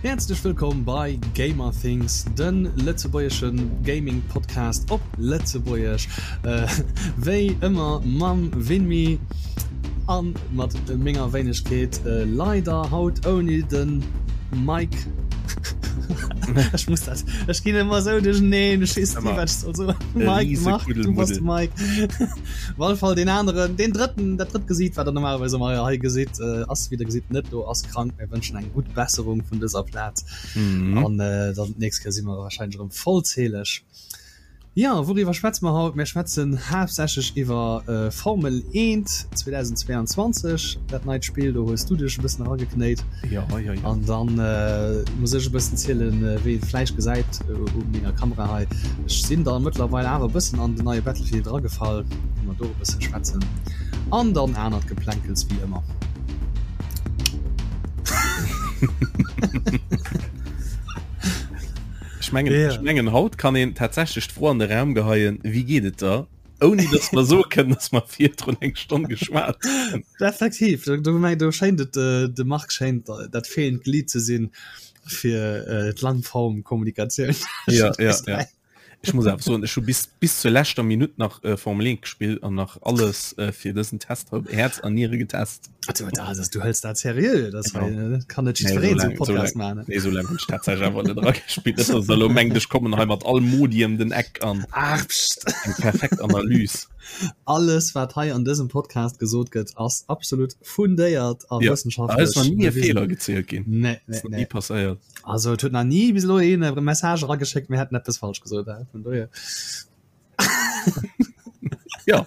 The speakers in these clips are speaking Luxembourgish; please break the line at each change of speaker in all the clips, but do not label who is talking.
Häerzlech wëllkomm bei Gamer Things, de lëtzebuergesche Gaming Podcast op Lëtzebuergesch. Wéi ëmmer mam Vinmi an mat menger Wéinegkeet, leider haut ouni de Mike. Ech muss dat, ech ginn ëmmer esou duercheneen, ech weess ni wat ech soll soen. Mike, Marc, du bass de Mike. Op alle Fall deen aneren, deen drëtten, dat drëtt Gesiit, wat der normalerweis ëmmer hei gesitt, ass wéi der gesitt net do, ass krank. Mir wënschen eng gutt Besserung vun dëser Plaz. Mhm. An äh, dann d'nächst Kéier si mer wahrscheinlech erëm vollzähleg. Ja, wouriwwer schwätze mer haut? Mir schwätzen haaptsächlech iwwer äh, Formel 1 2022, dat neit Spill, do hues du dech e bëssen erageknéit.
Ja, ja, ja.
An dann äh, muss ech e bëssen zielen, äh, wéi et vläicht gesäit äh, u menger Kamera hei. Ech sinn da mëttlerweil awer e bëssen an den neie Battlefield eragefall, wou mer do e bësse schwätzen. An dann anert Geplänkels wéi ëmmer.
Ech mengen, yeah. ech mengen haut kann een tatsächlech d'Fro an de Raum geheien, wéi geet et der? Ouni dass mer soe kënnen, dass mer virdrun eng Stonn geschwat
hunn. Effektiv, du, du, du schéint et, äh, de Marc schéint dat fehlend Glied ze sinn fir äh, d'Langform-Kommunikatioun.
Ja, ja, ja. Ech muss awer soen, ech hu bis, bis zur leschter Minutt nach äh, Formel 1 gespillt an nach alles äh, fir dësen Test op Häerz an Niere getest.
Also, da, das, du hëls dat seriö, das ja. äh, kann net jiddwereen
so Podcast so machen. Nee, so lang hunn ech tatsächlech awer net eragespielt. Net, dass der elo mengt, ech kommen hei mat all Modi ëm den Eck an
Ach, pst.
eng perfekt Analys.
Alles, wat hei an dësem Podcast gesot gëtt, ass absolut fundéiert a
ja.
wëssenschaftlech.
Da ist nach nie e Feeler gezielt ginn.
Nee, nee,
nee. Nie passéiert.
Also et huet nach ni bis elo een e Message erageschéckt, mir hätten eppes falsch gesot, äh, vun dohier.
Ja.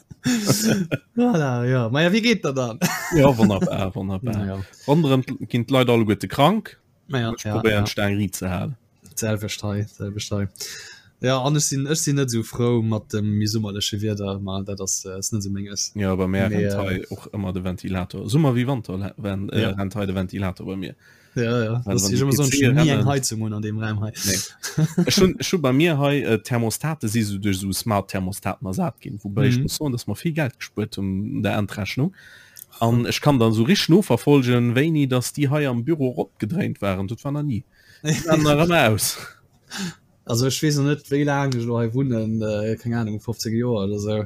Voilà, ja. Ma ja, wéi geet der dann?
Ja, wonnerbar, wonnerbar.
Ja.
Ronderëm ginn d'Leit alleguerte krank.
Ma ja,
Ech
ja,
probéieren
ja.
d'Staang riit ze halen.
D'selwecht hei, d'selwecht hei. Ja, an ech sinn, ech sinn net esou frou mat dem méi summerleche Wieder, ma dat ass, äh, ass net esou menges.
Ja, bei mär
Mee,
rennt
äh,
hei och ëmmer de Ventilator. Summer wéi Wanter ren, äh,
Ja.
rennt hei de Ventilator bei mir.
Ja, ja.
Well
Das
wann
ich
die
immer so
PC
nie eng
rennen-
Heizung un an dem Raum hei.
Nee. Ech hunn ech hu bei mir hei äh, Thermostate si so duerch so Smart Thermostaten ersat ginn, woubäi ech
Mhm.
muss soen, dass mer vill Geld gespuert hunn an der Endrechnung. An ech kann dann so rich noverfolgen, wéini dass déi hei am Büro eropgedréint waren. Dat war nach nie. Déi waren nach ëmmer aus.
Also ech weess noch net wéi laang ech elo hei wunnen, äh, keng Ahnung 15 Joer oder sou.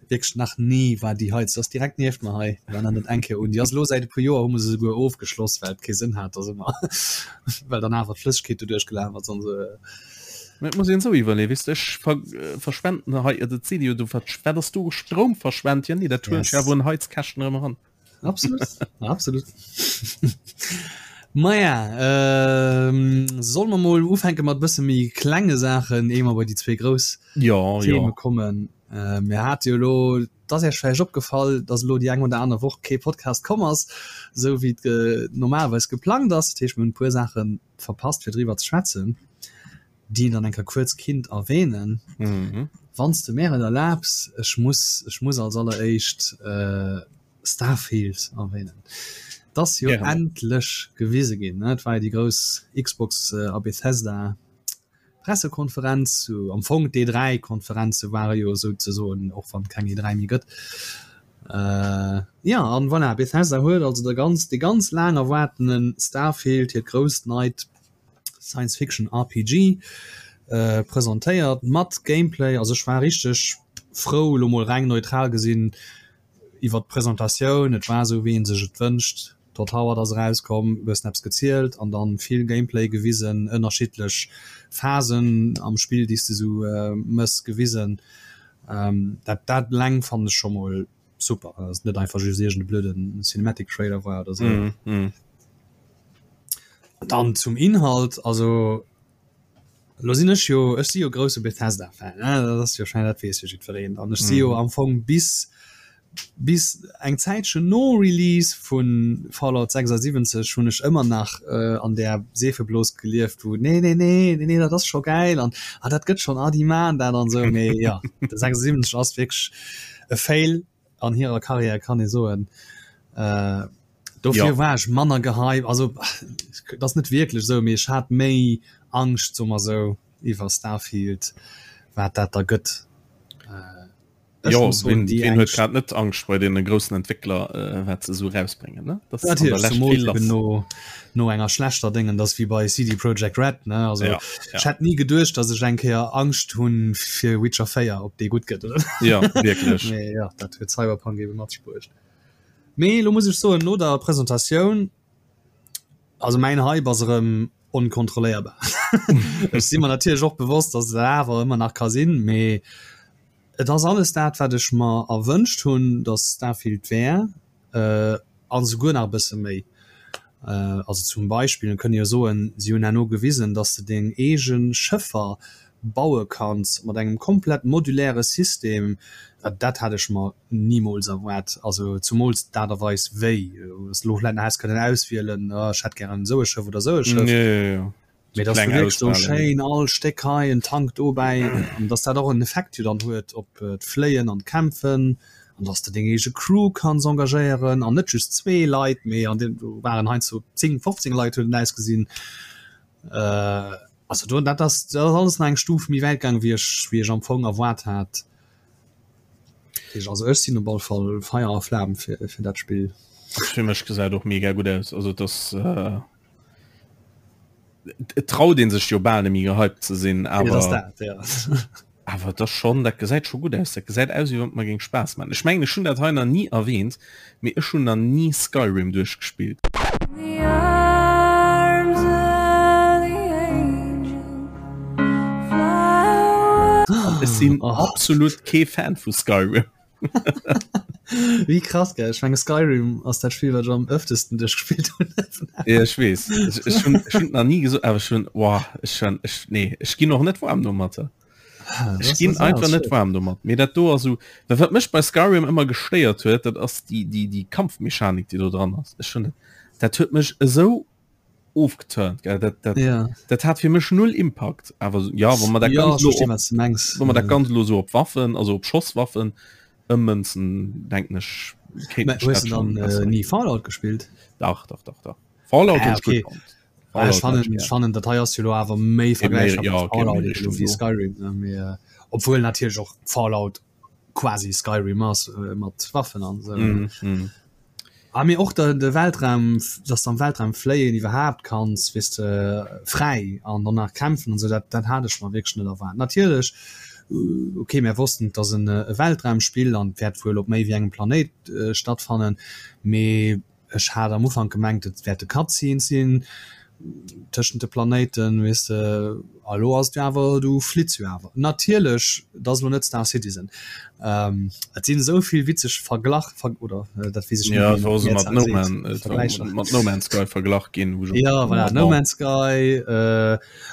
Wierklech nach ni war déi Heizung, ass direkt nieft mer hei, war nach net eng Kéier un. Déi ass elo säit e puer Joer hu mer se souguer ofgeschloss, well et kee Sënn hat, dass ëmmer well dann awer d'Flëssegkeet doduerch gelaf ass an sou.
Mä et muss een esou iwwerleeën, weess de, ech ver verschwenden hei, dat seet ee jo do, wat wat ass do Stroum verschwent? Jo nee, dat huelen ech
Yes.
awer un Heizkäschten erëm eran.
Absolut, absolut. Maja, ähm, solle mer mol ufänke mat bësse méi klenge Saachen, éier mer bei déi zwee grouss
Ja,
Theme
ja.
kommen. Äh, mir hate jo elo, et ass Iech vläicht opgefall, dass elo déi eng oder aner Woch kee Podcast komm ass, esou wéi et ge normalerweis geplangt ass. Dat heescht, mir hunn e puer Saache verpasst, fir driwwer ze schwätzen, déi een dann eng Kéier kuerz kinnt erwähnen.
Mhm.
Wann s de mär et erlaabs, ech muss, ech muss als alleréischt äh, Starfield erwähnen. Et ass jo
Gären.
endlech gewise ginn, ne? Et war jo déi grouss Xbox a Bethesda Pressekonferenz, am Fong d'E3 Konferenze ware jo souzesoen, och wann et keng E3 méi gëtt. Äh, ja, an voilà, Bethesda huet also de ganz, dee ganz laang erwaartene Starfield, hiert grousst neit Science Fiction RPG, äh, presentéiert mat Gameplay. Also ech war richteg frou, elo mol reng neutral gesinn, iwwert d'Presentatioun, et war esou wéi een sech et wënscht, Todd Howard ass erauskomm, e bëssen eppes gezielt an dann vill Gameplay gewisen, ënnerschiddlech Phasen am Spill déi s de esou mëss gewisen. Dat dat eleng fannen ech scho mol super, dass et net einfach just iergend e blöden Cinematic Trailer war oder sou. Dann zum Inhalt, also Lo sinn ech jo, ech si jo grousse Bethesda-Fan, ne, dat ass jo schonn, dat weess jo jiddwereen. An ech si jo am Fong bis, bis eng Zäitchen no Release vu Fallout 76 hunn ech ëmmer nach an där Seefeblos gelieft, wou nee, nee, nee, nee, nee, dat ass scho gäil an ah, dat gëtt schonn, ah, déi maachen dat an esou. Mee jo, de 76 ass wierklech e Fail an hirer Karriär, kann ee soen. Dofir ja. war ech manner gehypt, also dat ass net wierklech esou, mee ech hat méi Angscht, soe mer esou, iwwer Starfield, wat dat da gëtt. Ech
Jo,
muss soen,
ween,
déi
ween huet
eng
grad net Angscht bei deene groussen Entwéckler, äh, wat se esou rausbréngen, ne? Dat ass an der
Natierlech,
Lescht
zemools
vill
eben
lass.
no, no enger schlechter Déngen, dat ass wéi bei CD Projekt Red, ne? Also
Ja,
ech
ja.
hätt ni geduecht, datt ech eng Kéier Angscht hunn fir Witcher 4, ob dee gutt gëtt oder net.
Ja, wierklech.
Mee jo, dat huet Cyberpunk ebe mat sech bruecht. Mee elo muss ech soen, no der Presentatioun, also mäin Hype ass erëm onkontrolléierbar. Ech si mer natierlech och bewosst, datt et dat awer ëmmer nach ka sinn, mee et ass alles dat, wat ech mer erwënscht hunn, datt Starfield wär, an esouguer nach e bësse méi. Also zum Beispill, mir kënne jo soen, si hunn herno gewisen, datt s de deng eege Schëffer baue kanns mat engem komplett moduläre System. Dat hat ech mer Nimools erwaart, also zumools d'Aart a Weis wéi s de lo vläit nach häss kënnen auswielen, oh ech hätt gären esou e Schëff oder esou e Schëff, mee dass du wierklech do schéin all Stéck hei, en Tank dobäi, an dass dat och en Effekt jo dann huet op d'Fléien an d'Kämpfen, an dass de deng eege Crew kanns engagéieren an net just zwee Leit, mee an deem do waren heiansdo 10, 15 Leit huet et ausgesinn. Also do dat ass dat ass alles nach eng Stuf méi wäit gaang wéi ech wéi ech am Fong erwaart hat. Also ech sinn op alle Fall Feier a Flam fir fir dat Spill.
Fir mech gesäit och mega gutt aus. Also dass äh, et traut een sech jo bal net méi gehypt ze sinn,
Ja, dat ass
awer
dat, ja.
awer dat schon dat gesäit scho gutt aus. Dat gesäit aus wéi wann et mer géing Spaass maachen. Ech mengen ech hunn dat hei nach ni erwähnt, mee ech hunn nach ni Skyrim duerchgespillt. An ech sinn absolut kee Fan vu Skyrim.
Wéi krass gell, ech menge Skyrim ass dat Spill wat ech am ëftesten duerchgespillt hunn.
Ja ech weess, ech, ech hunn ech hunn nach ni gesot, awer ech hunn boah, ech hunn ech nee ech ginn och net waarm domatter. Ech ginn einfach net waarm domat. Mee dat do ass esou, well wat mech bei Skyrim ëmmer gestéiert huet, dat ass déi déi déi Kampfmechanik déi do dran ass. Ech hunn dat dat huet mech esou ofgeturnt gell dat dat
ja.
dat hat fir mech null Impact awer ja wann man dat
ja,
ganz lo
verstehe,
op,
was du mengst.
wann man dat ganz lo so op Waffen also op Schosswaffen ëmmënzen denken ech kéint
Mä
ech
hues
dat
du
schon
dann äh,
besser.
nie Fallout gespielt?
Dach dach dach dach Fallout
Ah,
hunn ech gutt
okay.
fonnt.
Ah, ech
Fallout hat ech
fannen,
gär.
ech fannen dat hei ass jo lo awer méi
Méi
vergläichbar
ja
mat
okay méi
Fallout eben lo
Richtung
wéi
do.
Skyrim ne mee äh, obwuel natierlech och Fallout quasi Skyrim ass äh, mat Waffen an esou ne.
Mm, mm.
Ah mee och de de Weltraum, dass de am Weltraum fléien iwwerhaapt kanns, weess de, fräi an dann nach kämpfen an esou, dat dat hat ech mer wierklech net erwaart. Natierlech, ok, mär wossten et ass en e Weltraumspill an et wäert wuel op méi wéi engem Planéit stattfannen, mee ech hat am Ufank gemengt et wäerte Cutscenes sinn tëschent de Planéiten, weess de, a lo ass et jo awer, du flitts jo awer. Natierlech, et ass elo net Star Citizen. Et sinn esou vill witzeg Verglach, ver, oder dat weess ech net,
Ja,
wéi
et war
een
se
déi
mat
Mehrzahl
No
seet,
Man, et war
Vergläicher.
mat No Man's Sky verglach ginn, wou ech och
Ja, voilà, No
bon.
Man's Sky.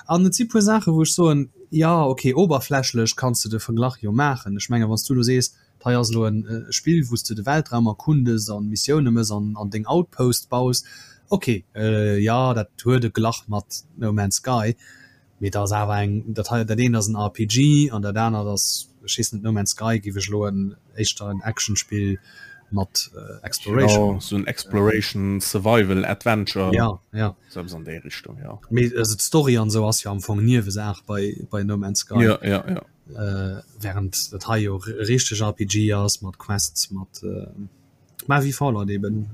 An et si puer Saachen, wou ech soen, jo, okay, oberflächlech kanns de de Verglach jo maachen. Ech mengen, wann s du elo sees, Hei ass elo en Spill wou s de de Weltraum erkundes an Missioune mëss an an deng Outposts baus. Ok, jo dat huet e Glach mat No Man's Sky, mee dat ass awer eng, dat hei, dat eent ass en RPG an dat anert ass, ech weess net, No Man's Sky giff ech elo en éischter en Actionspill mat Exploration.
Jo, sou en Exploration, Survival, Adventure.
Ja, ja.
Sou eppes an déi Richtung, jo.
Mee also d'Story an esou ass jo am Fong Niewesaach bei bei No Man's Sky.
Jo, jo, jo.
Während dat hei jo e richteg RPG ass mat Quests, mat ma wéi Fallout eben.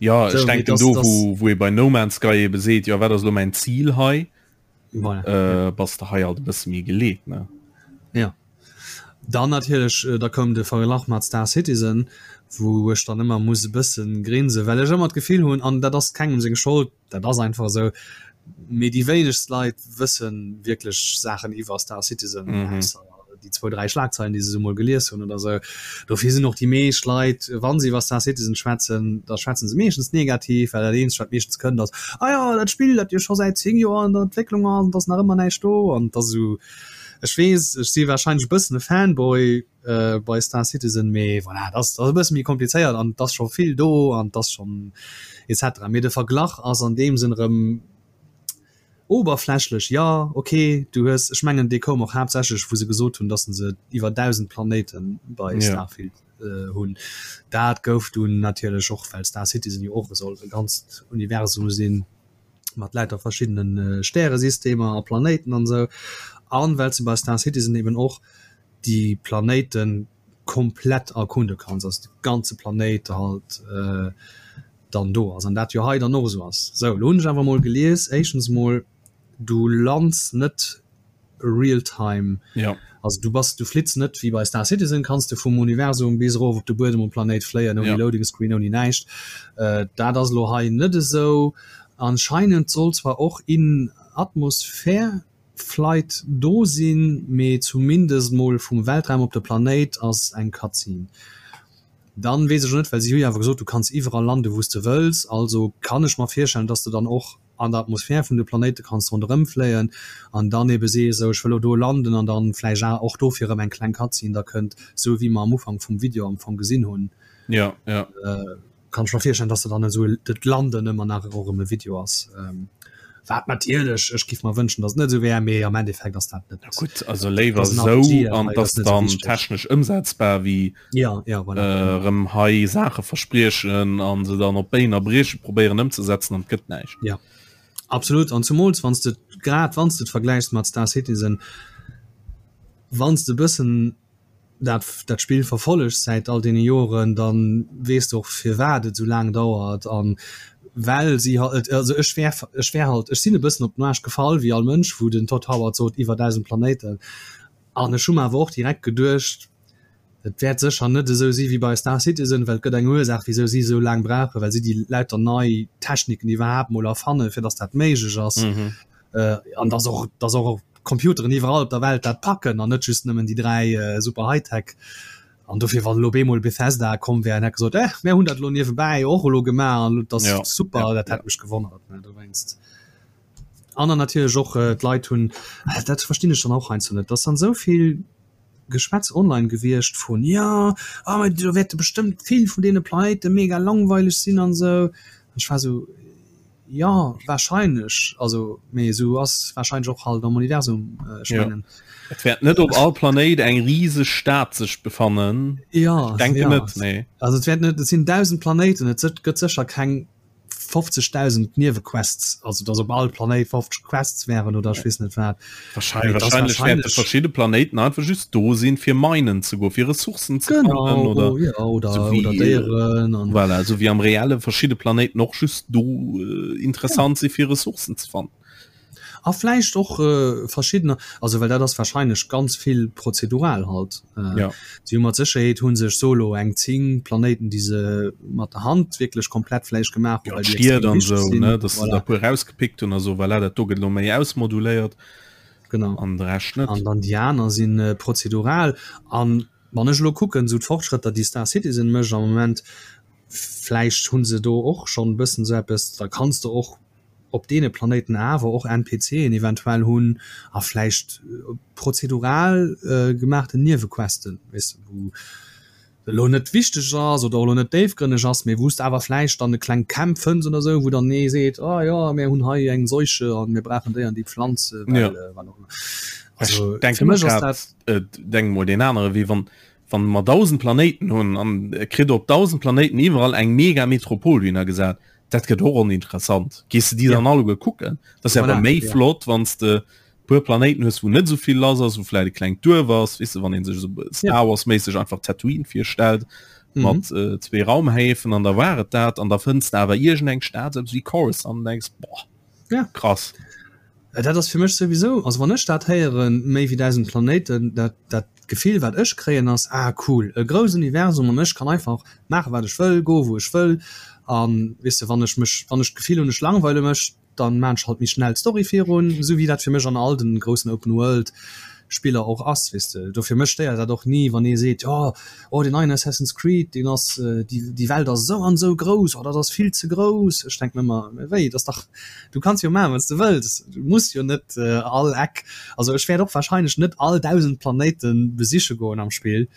Jo, ech denken do wou wou ee bei No Man's Sky ebe seet, jo wat ass elo mäin Zil hei,
voilà,
bass de hei alt e bësse méi geleet, ne?
Jo. Dann natierlech, da koum de Verglach mat Star Citizen, wou ech dann ëmmer muss e bësse grinsen, well ech ëmmer d'Gefill hunn, an dat ass kengem seng Schold, Dat ass einfach esou. Mee déi wéinegst Leit wësse wierklech Saachen iwwer Star Citizen, ausser déi zwou, dräi Schlagzeilen, déi se esou mol gelies hunn oder esou. Dofir sinn och déi meescht Leit, wa se iwwer Star Citizen schwätzen, da schwätze se meeschtens negativ, well dat eenzegt, wat meeschtens kënnt, ass, Ah jo, dat Spill, dat jo scho säit 10 Joer an der Entwécklung ass an et ass nach ëmmer näischt do. An et ass esou, ech weess, ech si warscheinlech e bëssen e Fanboy, bei Star Citizen, mee voilà, dat ass e bësse méi komplizéiert an et ass scho vill do an et ass schonn et cetera. Mee de Verglach ass an deem Sënn erëm oberflächlech, jo ok, du hues, ech mengen dee koum och haaptsächlech wou se gesot hunn, datt se iwwer 1.000 Planéite bei Starfield hunn. Dat gouf dunn natierlech och, well Star Citizen jo och soll e ganzt Universum sinn mat lauter verschiddene Stäresystemer a Planéiten an esou, an well se bei Star Citizen eben och. déi Planéiten komplett erkunde kanns, also de ganze Planéit halt dann do ass an dat jo hei dann och esou ass. Sou, elo hunn ech awer mol gelies, éischtens mol, du lands net real time,
ja.
also du bass, du flitts net wéi bei Star Citizen, kanns de vum Universum bis erof op de Buedem um Planéit fléien ouni ja. Loading Screen, ouni näischt. Dat ass elo hei net esou. Anscheinend soll zwar och in Atmosphär Flight do sinn, mee zumindest mol vum Weltraum op de Planéit ass eng Cutscene. Dann weess ech och net, well si hu jo awer gesot, du kanns iwwerall landen, wou s de wëlls, also kann ech mer virstellen, dass de dann och an der Atmosphär vun de Planéite kanns ronderëm fléien an dann ebe sees, esou ech wëll elo do landen an dann vläicht och dofir erëm eng kleng Cutscene da kënnt, esou wéi mer am Ufank vum Video am Fong gesinn hunn.
Ja, ja.
Kann ech mer virstellen, dass se dann esou dat Landen ëmmer nach och erëm e Video ass. Wat natierlech, ech giff mer wënschen, dass et net esou wär, mee am Endeffekt ass dat net.
Ja gutt, also léiwer esou an dass dann technesch ëmsetzbar wéi
ja, ja,
voilà. erëm hei Saache verspriechen an se dann op Béin a Brieche probéieren ëmzesetzen an et gëtt näischt.
Ja, absolut. An zumools wann s de grad wann s de et vergläichs mat Star Citizen, wann s de e bëssen dat dat Spill verfollegs säit all deene Joren, da weess de och firwat et esou laang dauert an well si halt, also ech wär ech wär halt, ech sinn e bëssen op den Aarsch gefall wéi all Mënsch, wou den Todd Howard sot iwwer 1.000 Planéiten an ech hu mer awer och direkt geduecht, et wäert sécher net esou si wéi bei Star Citizen, well et gëtt eng Ursaach wisou si esou laang brauchen, well si déi lauter nei Techniken iwwerhaapt mol erfannen, fir datt dat méiglech ass an datt och datt och Computeren iwwerall op der Welt dat packen an net just nëmmen déi 3 super Hightech. An dofir wann elo bemol Bethesda komm wär an hätt gesot, eh mär hunn dat elo niewebäi och elo gemaach an dat ass ja, super, ja, dat hätt ja. mech gewonnert ne dowéinst. An dann natierlech och äh, d'Leit hunn äh, dat verstinn ech dann och heiansdo net, dass dann esou vill Geschwätz online gewiescht vun ja ah, ah, do wäerte bestëmmt vill vun deene Planéite mega langweileg sinn an esou. An ech war esou Ja wahrscheinlech, also mee esou ass wahrscheinlech och halt am Universum äh, ech
ja. mengen. Et wäert net op all Planéit eng rieseg Stad sech befannen.
Ja
ich denke
ja.
net nee.
Also et wäert net, et sinn 1000 Planéiten, et gëtt sécher keng 50.000 Niewequests, also dass op all Planéit 50 Quests wären oder ech weess net wat.
Wahrscheinlich, wahrscheinlich, wahrscheinlich verschiedene Planeten einfach just do sinn fir minen ze go fir Ressourcen
zu genau, oder, ja, oder, so
wie, oder Déieren an voilà, so wie am reelle verschiedene Planeten noch just do äh, interessant ja. si fir Ressourcen ze fannen.
A vläicht och äh, verschiedener also well dat ass wahrscheinlech ganz vill prozedural halt äh,
ja.
Si hu mat Sécherheet hu sech solo eng 10 Planéiten déi se mat der Hand wierklech komplett vläicht gemaach
hunn, ja, well déi extrem wichteg sinn. Sou, ne, dass voilà. se da puer rausgepickt hunn a so voilà, dat do gëtt lo méi ausmoduléiert.
Genau.
An de Rescht net.
An dann déi aner sinn äh, prozedural. An wann ech lo kucken, sou d'Fortschrëtter déi Star Citizen mécht am Moment, vläicht hu se do och schonn e bëssen sou eppes, da kanns de och op deene Planéiten awer och NPCen eventuell hunn a vläicht prozedural gemaachten Niewequesten, weess de, wou elo net wichteg ass oder och elo net déifgrënneg ass, mee wou s de awer vläicht dann e kleng Camp fënns oder sou, wou dann ee seet, oh jo, mir hunn hei eng Seuche an mir brauchen déi an déi Pflanz,
well wat och ëmmer. Also fir mech ass dat. Denk mol deen anere Wee, wann wann mer 1.000 Planéiten hunn an kritt op 1.000 Planéiten iwwerall eng mega Metropol dohinner gesat, dat gëtt och oninteressant. Gees de déi dann alleguer kucken? Dat ass ja awer méi flott, wann s de puer Planéiten hues, wou net esou vill lass ass, wou vläit e klengt Duerf ass, weess de, wann ee sech esou Star Wars-méisseg einfach Tatooine virstellt mat zwee Raumhäfen an da war et dat an da fënns de awer iergendeng Stad, esou eppes wéi Coruscant an denks, boah, krass.
Dat ass fir mech souwisou, also wann ech dat héieren, méi wéi 1.000 Planéiten, dat dat Gefill wat ech kréien ass, ah cool, e grouss Universum an ech kann einfach maache wat ech wëll, goe wou ech wëll an weess de wann ech mech, wann ech d'Gefill hunn ech langweile mech, dann maan ech halt méi schnell d'Story virun, esou wéi dat fir mech an all den groussen Open World Spiller och ass, weess de. Dofir mech stéiert dat och ni wann ee seet, jo oh deen neien Assassin's Creed deen ass, déi déi Welt ass esou an esou grouss, oh dat ass vill ze grouss. Ech denken ëmmer, mä wéi, dat ass dach, du kanns jo maachen wat s de wëlls, du muss jo net all Eck, also ech wäert och wahrscheinlech net all 1.000 Planéite besiche goen am Spill,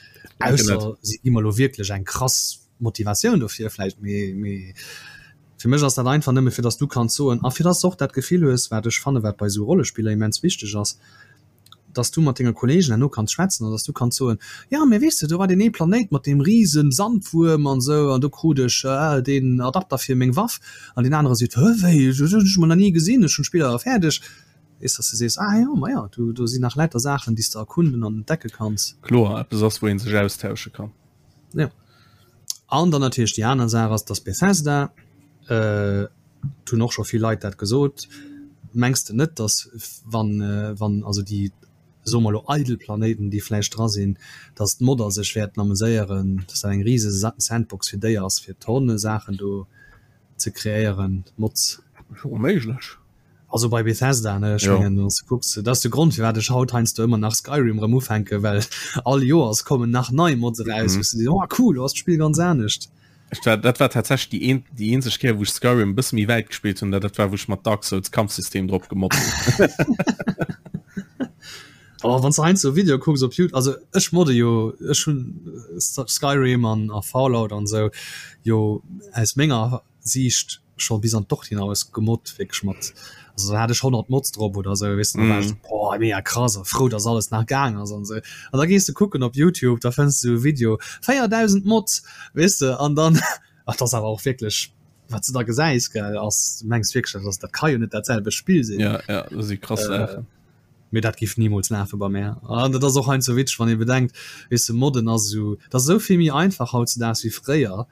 ausser si gi mer elo wierklech eng krass Motivatioun dofir vläicht, mee mee fir mech ass dat einfach nëmme fir dass du kanns soen a fir dass de och dat Gefill hues, wat ech fanne wat bei esou Rollespiller immens wichteg ass, dass du mat denge Kollegen herno kanns schwätzen an dass du kanns soen, jo mee weess de, do war deen ee Planéit mat deem rise Sandwuerm an esou an do krut ech deen Adapter fir meng Waff an deen anere seet, hë wéi, dat hunn ech mol nach ni gesinn, ech hunn d'Spill awer fäerdeg. Weess, dass de sees, ah jo, ma jo, do, do sinn nach lauter Saachen, déi s de erkunden an entdecke kanns.
Kloer, eppes ass, wou ee sech austausche kann.
Jo. An dann natierlech déi aner Saach ass, dass Bethesda, et hunn och scho vill Leit dat gesot, mengs de net, dass wann, wann also déi, soe mer elo, eidel Planéiten, déi vläicht dra sinn, dass d'Modder sech wäerten ameséieren, dass dat eng rise Sandbox fir déi ass, fir Tonne Saachen do ze kreéieren, Mods?
Jo, méiglech.
Also bei Bethesda, ne, ech mengen, wann s de kucks, dat ass de Grond, firwat ech haut heiansdo ëmmer nach Skyrim erëm ufänken, well all Joers kommen nach nei Mods eraus, wou s de sees, oh cool, lo ass d'Spill ganz anescht.
Ech war, dat war tatsächlech déi een, déi eenzeg Kéier, wou ech Skyrim e bësse méi wäit gespillt hunn, dat war, wou ech mat Dark Souls Kampfsystem drop gemoddt hunn.
Oh, wann s de heiansdo Videoe kucks op Youtube, also ech modde jo, ech hunn Skyrim an a Fallout an esou jo aus menger Siicht scho bis an d'Ordinaus gemoddt wierklech mat also da hat ech 100 Mods drop oder sou weess de, da war ech boah mega krass a frou dass alles nach gaang ass an sou an da gees de kucken op Youtube da fënns de sou e Video 4000 Mods weess de an dann ach dat ass awer och wierklech wat s de da gesäis gell ass du mengs wierklech dat ass dat ka jo net dat selwecht Spill sinn.
Ja ja dat si krass Saachen.
Mee dat giff nimools lafe bei mär an dat ass och heiansdo witzeg wann ee bedenkt weess de modden ass esou dat ass esou vill méi einfach hautzedaags wéi fréier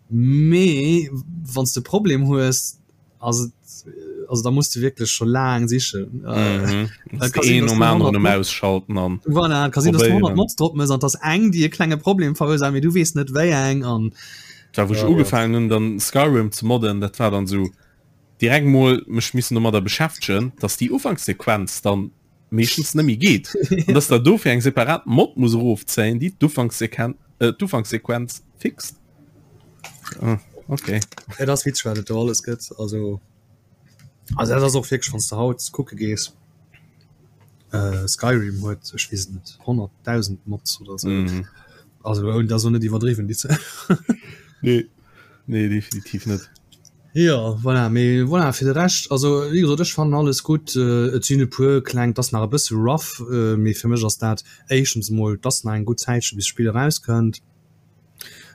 Mee wann s de e Problem hues, ass et, also da muss de wierklech scho laang sichen.
Mhm. Äh, ka sinn, dass du 100 Mod- ausschalten an
Voilà, ka sinn, dass du 100 Mods drop mëss an dass eng déi e klenge Problem verursaacht, mee du weess net wéi eng an
Da wou ech ugefaangen hunn dann Skyrim ze modden, dat war dann sou direkt mol mech missen domadder beschäftegen, dass déi Ufankssequenz dann meeschtens net méi geet an dass der dofir eng separat Mod muss erofzéien, déi d'Ufankssequen äh, d'Ufankssequenz fixt. Ah, okay.
Et ass witzeg wat et do alles gëtt. Also also dat ass och wierklech wann s de haut kucke gees, äh, Skyrim huet ech weess et net 100.000 Mods oder sou. Mhm. Also dat ass och net iwwerdriwwen déi Zuel.
Nee, nee definitiv net.
Jo, voilà, mee voilà, fir de Rescht, also wéi gesot, ech fannen alles gutt. Et sinn e puer kleng, et ass nach e bësse rough, mee fir mech ass dat éischtens emol, et ass nach eng gutt Zäitche bis d'Spill erauskënnt.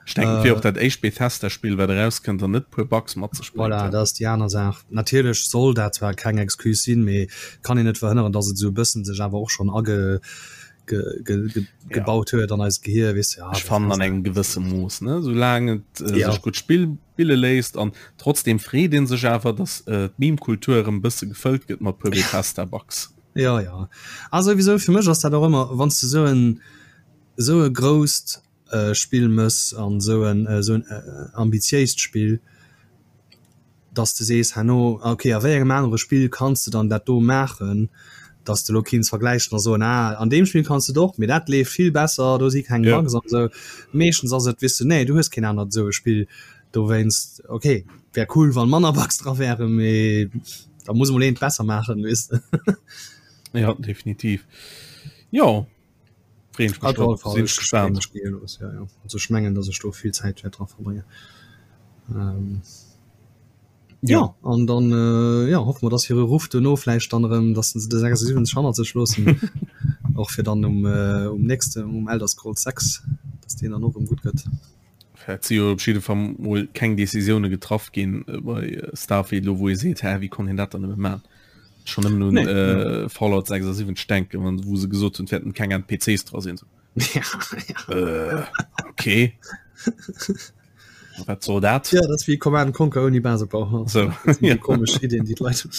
Ech denken, et wier och dat éischt Bethesda-Spill, wat erauskënnt an net e puer Bugs mat sech
bréngt. Voilà, dat ass déi aner Saach. Natierlech soll dat zwar keng Excuse sinn, mee et kann een net verhënneren, datt et esou e bëssen sech awer och schonn age gebaut huet an eist Gehir, weess de.
Ech fannen an engem gewësse Mooss, ne, soulaang et sech gutt spille léisst an trotzdem freet een sech awer, datt d'Meme-Kultur erëm e bësse gefëllt gëtt mat puer Bethesda-Bugs.
Jo, jo. A souwisou, fir mech ass dat och ëmmer, wann s de esou en esou e grousst Spill mëss an esou en esou en ambitiéist Spill, dass de sees herno, ok, a wéi engem anere Spill kanns de dann dat do maachen, dass de elo kinns vergläichen a soen, ah, an deem Spill kanns de et och, mee dat leeft vill besser, do si keng Bugs an esou. Meeschtens ass et, weess de, nee, du hues keen anert esou e Spill, dowéinst, ok, wär cool, wann manner Bugs dra wären, mee da muss emol een et besser maachen, weess de.
Ja, definitiv. Jo.
Freeën ech mech drop, sinn ech gespaant. Ja, ja. Also ech mengen, dass ech do vill Zäit wäert dra verbréngen. Ähm, ja. ja, an dann äh, ja, hoffe mer, dass hire Ruff duerno vläicht dann erëm, dass se de 76 hannert sech loossen. Och fir dann um, äh, um nächste um Elder Scrolls 6, dass deen dann och erëm gutt gëtt.
Et si jo op jidde Fall mol keng Decisioune getraff ginn bei Starfield elo, wou ee seet, hä, wéi konnt een dat dann nëmme man? Schon nëmmen un nee. Fallout 76 denken, wann wou se gesot hunn, et wäerten keng NPCs dra sinn.
Ja,
ja. Äh, okay. Wat soll dat?
Ja, dat ass wéi Command Conquer ouni Basebau.
So.
Ja. Komesch Ideen, déi d'Leit hunn.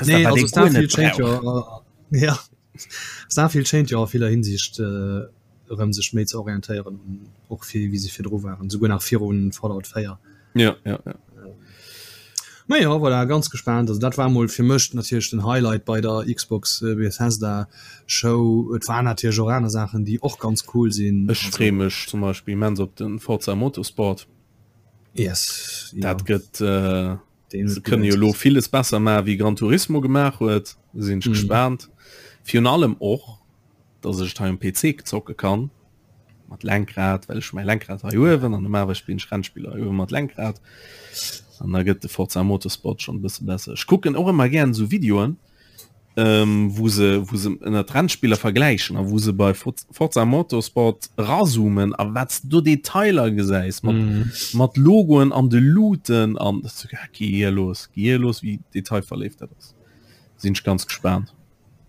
Nee, also Starfield schéint jo, ja. Starfield schéint jo a viller Hinsicht äh, erëm sech méi ze orientéieren un och fir wéi se virdru waren, souguer nach virun Fallout 4.
Ja, ja, ja.
Ma ja, voilà, ganz gespaant. Also dat war mol fir mech natierlech den Highlight bei der Xbox äh, Bethesda Show. Et war natierlech och aner Saachen, déi och ganz cool sinn.
Ech freeë mech zum Beispill immens op den Forza Motorsport.
Yes,
Dat ja. gëtt äh, se kënne jo lo villes besser maachen, wéi Gran Turismo gemaach huet. Sinn ech mm. gespaant. Virun allem och dass ech et hei um PC zocke kann mat Lenkrad, well ech mäi Lenkrad hei uewen an normalerweis spillen ech Rennspiller hei uewe mat Lenkrad an da gëtt de Forza Motorsport schon e bësse besser. Ech kucken och ëmmer gären esou Videoen, ähm, wou se wou se ënner d'Rennspiller vergläichen a wou se bei Forza Motorsport razoomen a wat s du Detailer gesäis mat mm. mat Logoen an de Luuten an gi hier los, gi hier los, wéi detailverléift dat ass. Sinn ech ganz gespaant.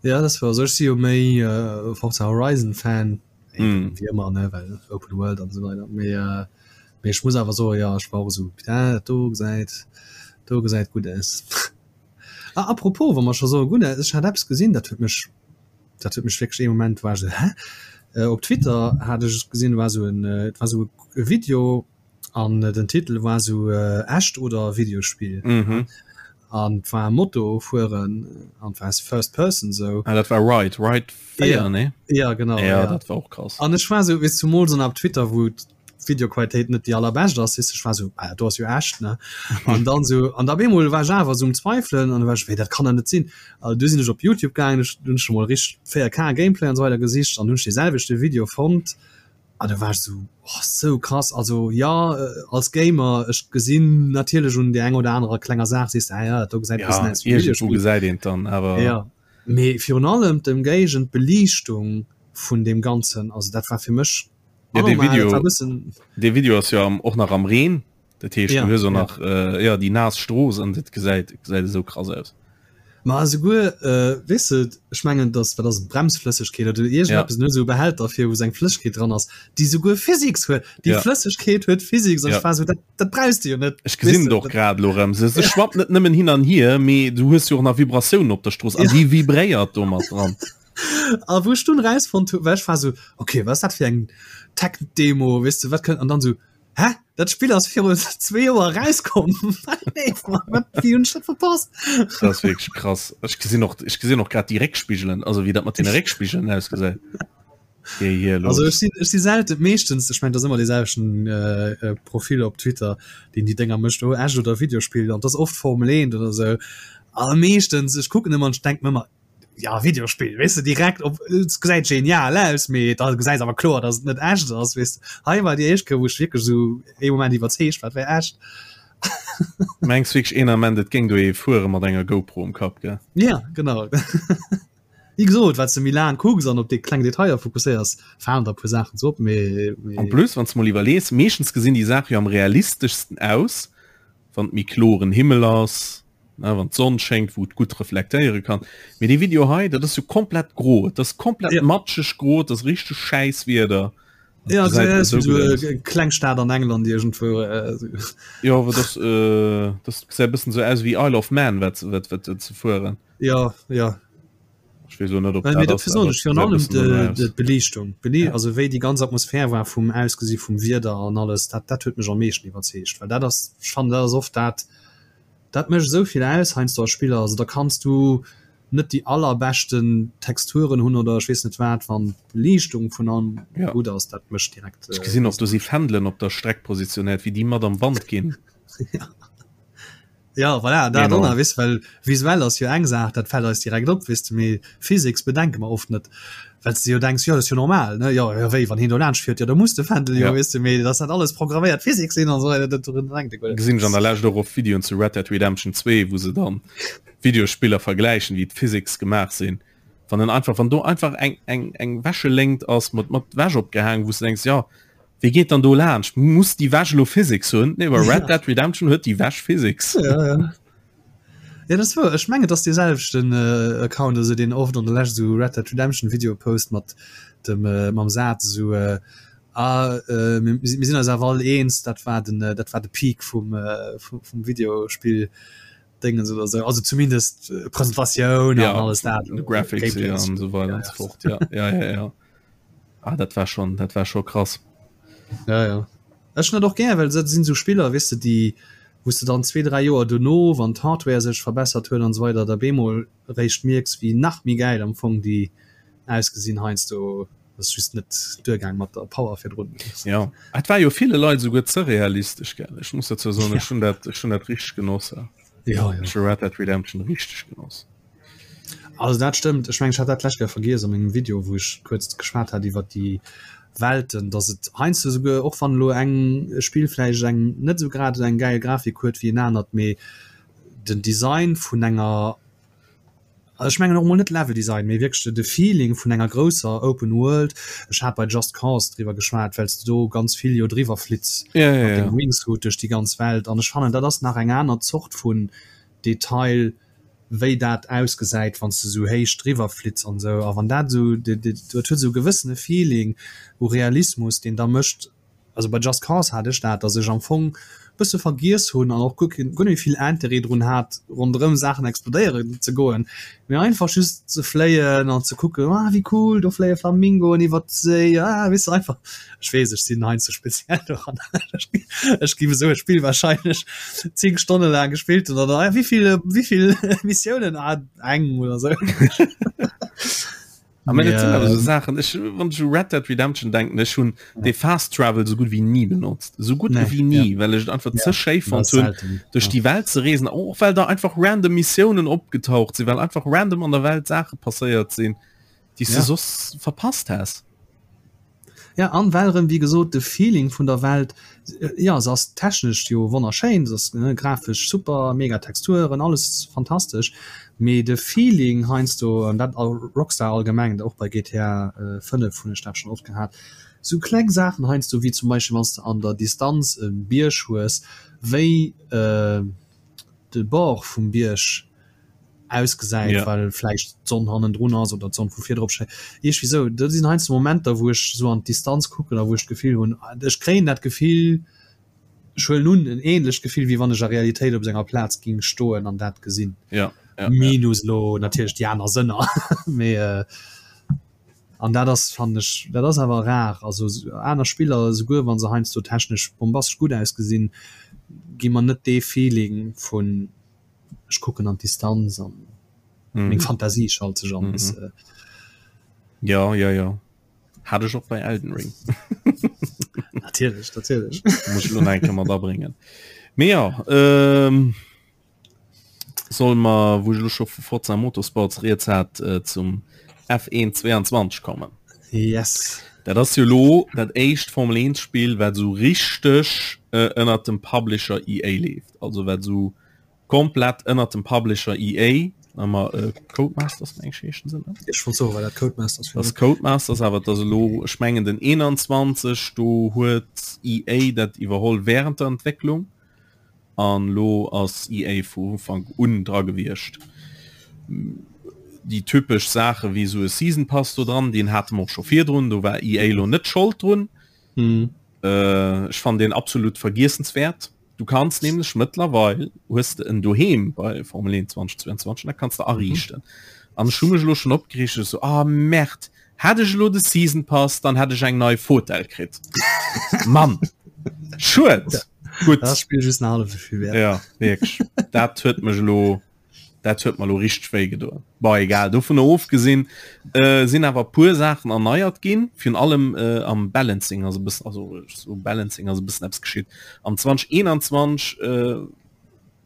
Ja das war ech si jo méi äh, Forza Horizon Fan mm. wie ëmmer ne well Open World an so weiter méi äh, mee ech muss awer so ja ech war so ja, do gesäit do gesäit gut aus. ah, apropos wa mer scho so gut ech hat Apps gesinn dat huet mech dat huet mech wierklech ee Moment war ech so hä? Äh, op Twitter hat ech gesinn war so en äh, war so e Video an den Titel war so äh, echt oder Videospiel.
Mhm.
An war Moto fueren an war first person so.
Ah, dat war Ride Ride 4
ja.
ne?
Ja genau
ja, ja. dat war och krass.
An ech war so wéi zumools an op Twitter wou d'Videoqualitéit net déi allerbescht ass, weess ech war so ah, do ass jo echt ne an dann so an da bemol war ech awer so um Zweifelen an war ech wéi dat kann der net sinn. Also du sinn ech op Youtube gaangen, ech hunn ech mol richteg 4K Gameplay an so weider gesicht an hunn ech dee selwechte Video fonnt an da war ech so oh, sou krass. Also ja als Gamer ech gesinn natierlech un där eng oder anerer klenger Saach sees de ah ja dat do gesäit e bëssen
Ja,
aus wéi
iergendwou
Videospill.
gesäit een et dann awer.
Ja mee virun allem d'Ëmgéigend, d'Beliichtung vun deem Ganzen, also dat war fir mech
Ja, dee
anormal, dat
Video,
war bëssen.
dee Video ass jo am, och nach am Reen, dat heescht
Ja,
du hues och
ja.
nach äh, ja, déi naass Strooss an dat gesäit gesäit esou krass aus.
Ma esouguer, äh, weess de, ech mengen, dass, wat ass et, Bremsflëssegkeet oder
Ja.
iergendeppes, en huet esou e Behälter fir, wou seng Flëssegkeet dran ass, déi esouguer Physics huet. Déi
Ja.
Flëssegkeet huet Physics an
Ja.
ech war esou, dat, dat brauchs de jo net,
Ech
weess
gesinn
de,
et och
dat.
grad elo erëm. Se, se
Ja.
schwappt net nëmmen hin an hier, mee du hues jo och nach Vibratiounen op der Strooss an
Ja.
déi vibréiert do mat dran.
A wou ech dunn erausfonnt hu, well ech war esou, okay, wat ass dat fir eng Tech-Demo, weess de, wat kënnt, an dann esou, hä, dat Spill ass viru zwee Joer erauskomm, nee, wat, wéi hunn ech dat verpasst?
Dat ass wierklech krass. Ech gesinn och, ech gesinn och grad déi Réckspigelen, also wéi dat mat deene Réckspigelen ausgesäit. Géi hier
Also
los.
ech sinn, ech si selten, meeschtens, ech mengen, dat ass ëmmer dee selwechten äh, Profil op Twitter, deen déi Dénger mécht, oh, echt oder Videospill, an dat ass oft Formel 1 oder esou, a meeschtens, ech kucken ëmmer an ech denk mir ëmmer, ja Videospill weess de direkt op et gesäit genial aus mee da gesäis awer kloer dass et net echt ass weess de. Hei war déi éischt Kéier wou ech wierklech esou ee Moment iwwerzeegt war et wär echt.
Mengs wierklech een Ament et géing do ee fuere mat enger GoPro um Kapp gell?
Ja genau. Wéi gesot wat s de méi laang kucks an op déi kleng Detailer fokusséiers falen der e puer Saachen sou op mee
En
mee.
plus wann s de mol iwwerlees, meeschtens gesinn déi Saache jo am realisteschsten aus wann et méi kloren Himmel ass, ne, wann d'Sonn schéngt, wou et gutt reflektéiere kann. Mee dee Video hei, dat ass jo komplett gro, et ass komplett
Ja.
matscheg gro, et ass richteg schäiss Wieder. Dat
Ja,
gesäit
das
esou
ist so
gutt aus.
eng kleng Stad an England irgendwo. Äh, so.
Jo, awer das, äh, das gesäit e bëssen esou aus wéi Isle of Man, wat, wat, wat, wat ze fueren.
Ja, ja.
Ech weess elo net, ob
Well,
dat
mee
ass,
dofir soen
awer
ech
et
virun
gesäit e
allem
bëssen danno
de,
aus.
de, d'Beliichtung. D'Beli
Ja.
also wéi déi ganz Atmosphär war vum Ausgesi vum Wieder an alles, dat, dat huet mech am meeschten iwwerzeegt, well dat ass, ech fannen, dat ass oft dat, Dat mécht esou vill aus heiansdo a Spiller. Also da kanns du net déi allerbeschten Texturen hunn oder ech weess net wat, wann d'Beliichtung vun allem
Ja.
gutt ass, dat mécht direkt.
Ech gesinn och, do si Fändelen op der Streck positionéiert, wéi déi mat am Wand ginn.
Ja, ja voilà, dat
Enorm.
och nach, weess, well visuell ass jo eng Saach, dat fält eis direkt op, weess de, mee Physics bedenke mer oft net. Well s de jo denks, jo dat ass jo normal, ne, jo, jo wéi, wann hien do laanscht fiert, jo da muss de Fändel jo,
Ja.
weess de, mee dass dat alles programméiert Physik sinn an esou weider, dat dorun denkt ee guer net.
Gesinn ech an der Lescht och oft Videoen zu Red Dead Redemption 2, wou se dann Videospiller vergläichen, wéi d'Physics gemaach sinn. Wann en einfach, wann do einfach eng, eng, eng Wäscheléngt ass mat, mat Wäsch opgehaangen, wou s de denks, jo, wéi geet dann do laanscht? Muss déi Wäsch elo Physics hunn? Nee, bei Red
Ja.
Dead Redemption huet déi Wäsch Physics.
Ja, ja. Ja, dat ass wouer. Ech mengen, et ass dee selwechten Account, also deen oft an der Lescht esou Red Dead Redemption Videoe post mat dem mam Saz esou, Ah, mir mir sinn eis awer all eens, dat war den dat war de Peak vum vum Videospill Déngens oder esou. Also zumindest Presentatioun an
Ja,
alles dat,
de Graphics
Gameplay
hier an esou weider
ja,
an
ja.
esou fort. Ja, ja, ja, ja. Ah, dat war schon, dat war scho krass.
Ja, ja. Ech hunn dat och gär, well dat sinn esou Spiller, weess de, déi wou s de dann zwee, dräi Joer dono, wann d'Hardware sech verbessert huet an esou weider, da bemol eréischt mierks, wéi nach méi gäil am Fong déi ausgesinn heiansdo. Ass just net duergaang mat der Power virdrun.
Jo, et war jo ville Leit esouguer ze realistesch, gell? Ech muss dozou soen, ech hunn dat, ech hunn dat richteg genoss.
Jo, jo.
Ech hu Red Dead Redemption richteg genoss.
Also dat stëmmt. Ech mengen ech hat dat d'lescht Kéier vergiess a mengem Video wou ech kuerz geschwat hat iwwert déi Welten, datt et heiansdo esouguer, och wann elo eng Spill vläicht eng net esou grad eng gäil Grafik huet wéi en anert, mee den Design vun enger, also ech mengen och emol net Leveldesign, mee wierklech de Feeling vun enger grousser Open World, ech hat bei Just Cause driwwer geschwat, well s de do ganz vill jo driwwer flitts
Ja, ja,
mat
ja.
dengem Wingsuit duerch déi ganz Welt an ech fannen dat ass nach eng aner Zort vun Detail. Wéi dat ausgesäit, wann s de esou héich driwwer flitts an esou. A wann dat esou, dat huet esou e gewëssene Feeling u Realismus, deen da mécht, also bei Just Cause hat ech dat, datt ech am Fong e bësse vergiess hunn an och guer keen, guer net méi vill Interêt drun hat, ronderëm Saachen explodéieren ze goen, mee einfach just ze fléien an ze kucken, ah wéi cool, do fléie Flamingoen iwwert d'Séi, ah weess de einfach. Ech weess, ech sinn heiansdo speziell doran. Ech géif esou e Spill wahrscheinlech 10 Stonne laang gespillt hunn oder ah, wéivill wéivill Missiounen? Ah, eng oder sou.
A mä dat sinn awer esou Saachen, ech, wann ech u Red Dead Redemption denken, ech hunn dee Fast Travel esou gutt wéi ni benotzt, esou gutt
Nee,
wéi ni,
ja.
well ech et einfach
Ja,
ze schéi
dat
fonnt
ass
hunn,
selten,
duerch
ja.
déi Welt ze reesen, och well da einfach random Missiounen opgetaucht sinn, well einfach random an der Welt Saache passéiert sinn, déi s de
Ja.
soss verpasst häss.
Ja, an well erëm, wéi gesot, de Feeling vun der Welt, jo, se ass technesch jo wonnerschéin, se ass grafesch super, mega Texturen, alles fantastesch, mee de Feeling heiansdo, an dat Rockstar allgemeng, och bei GTA 5 hunn ech dat schonn oft gehat, sou kleng Saachen heiansdo, wéi zum Beispill wann s de an der Distanz e Bierg hues, wéi de Bord vum Bierg ausgesäit,
Ja.
well vläicht d'Sonn hannendrun ass oder d'Sonn vu vir drop schéngt. Iergwéi sou. Dat sinn heiansdo Momenter, wou ech sou an d'Distanz kucken a wou ech d'Gefill hunn, ech kréien dat Gefill, ech huelen un, en ähnlecht Gefill, wéi wann ech a Realitéit op senger Plaz ging stoen an dat gesinn.
Ja, ja, ja.
Minus elo natierlech déi aner Sënner. Mee an dat ass, fannen ech, dat ass awer rar. Also aner Spiller, esouguer wa se heiansdo technesch bombastesch gutt ausgesinn, gi mer net dee Feeling vun ech kucken an d'Distanz an mm. meng Fantasie schalt sech an. Mm -hmm.
Ja ja ja hat ech och bei Elden Ring.
natierlech natierlech
muss lo enke mat abringen. Mee ja ähm, soll mer wou ech lo scho vu Forza Motorsports rieds hat äh, zum F1 22 kommen.
Yes.
Dat ass jo lo dat éischt Formel 1 Spill wat sou richteg äh, ënnert dem Publisher EA leeft. Also wat sou komplett ënnert dem Publisher EA ëmmer äh, Codemasters meng ech heeschen se ne?
Ech wollt soen, war dat Codemasters
Das Codemasters awer dat ass elo ech mengen den 21 do huet EA dat iwwerholl während der Entwécklung. An lo ass EA vu Ufank un dra gewiescht. Déi typesch Saache wéi esou e Season Pass do dran, deen hate mer och scho virdrun, do war EA lo net Schold drun. Ech fannen deen absolut vergiessenswäert. Du kanns nämlech mëttlerweil, hues de en doheem bei Formel 1 2022, dat kanns de ariichten. An ech hu mech elo schonn opgereegt, ech sou, ah Merde, Hätt ech elo de Season Pass, dann hätt ech eng nei Fotell kritt. Mann! Schued! Gutt.
Dat Spill just nach hallef esou vill wäert.
Ja, wierklech. Dat huet mech elo, dat huet mer elo richteg wéi gedoen. Bon, egal, dovunner ofgesinn, äh, sinn awer puer Saachen erneiert ginn, virun allem äh, am Balancing ass e bëssen, also so Balancing ass e bëssen eppes geschitt. Am 2021 äh,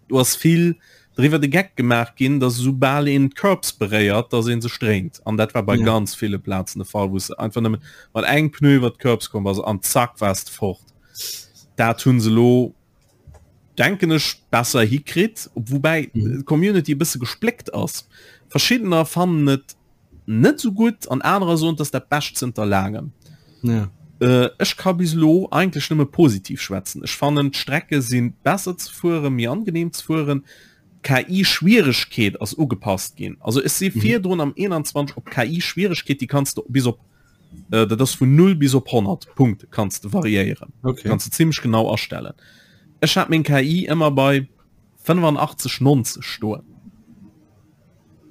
Do ass vill driwwer de Geck gemaach ginn, dass esou bal een d'Curbs beréiert, dass ee sech dréint. An dat war bei
Ja.
ganz ville Plazen de Fall, wou s de einfach nëmme mat engem Pneu iwwer d'Curbs komm bass an zack waars de fort. Dat hu se elo, denken ech, besser hikritt, woubäi d'Community e bësse gespléckt ass. Verschiddener fannen et net sou gutt an anerer soen, et ass dat Bescht zënter laangem.
Ja.
Äh, ech ka bis elo eigentlech nëmme positiv schwätzen. Ech fannen d'Strecke si besser ze fueren, méi angenehm ze fueren. D'KI-Schwieregkeet ass ugepasst ginn. Also ech si virdrun am 21 op KI-Schwieregkeet, déi kanns de bis op, äh, dat ass vun 0 bis op 100 Punkte kanns de variéieren.
Okay.
Kanns de zimmlech genau astellen. Ech hat meng KI ëmmer bei 85, 90 stoen.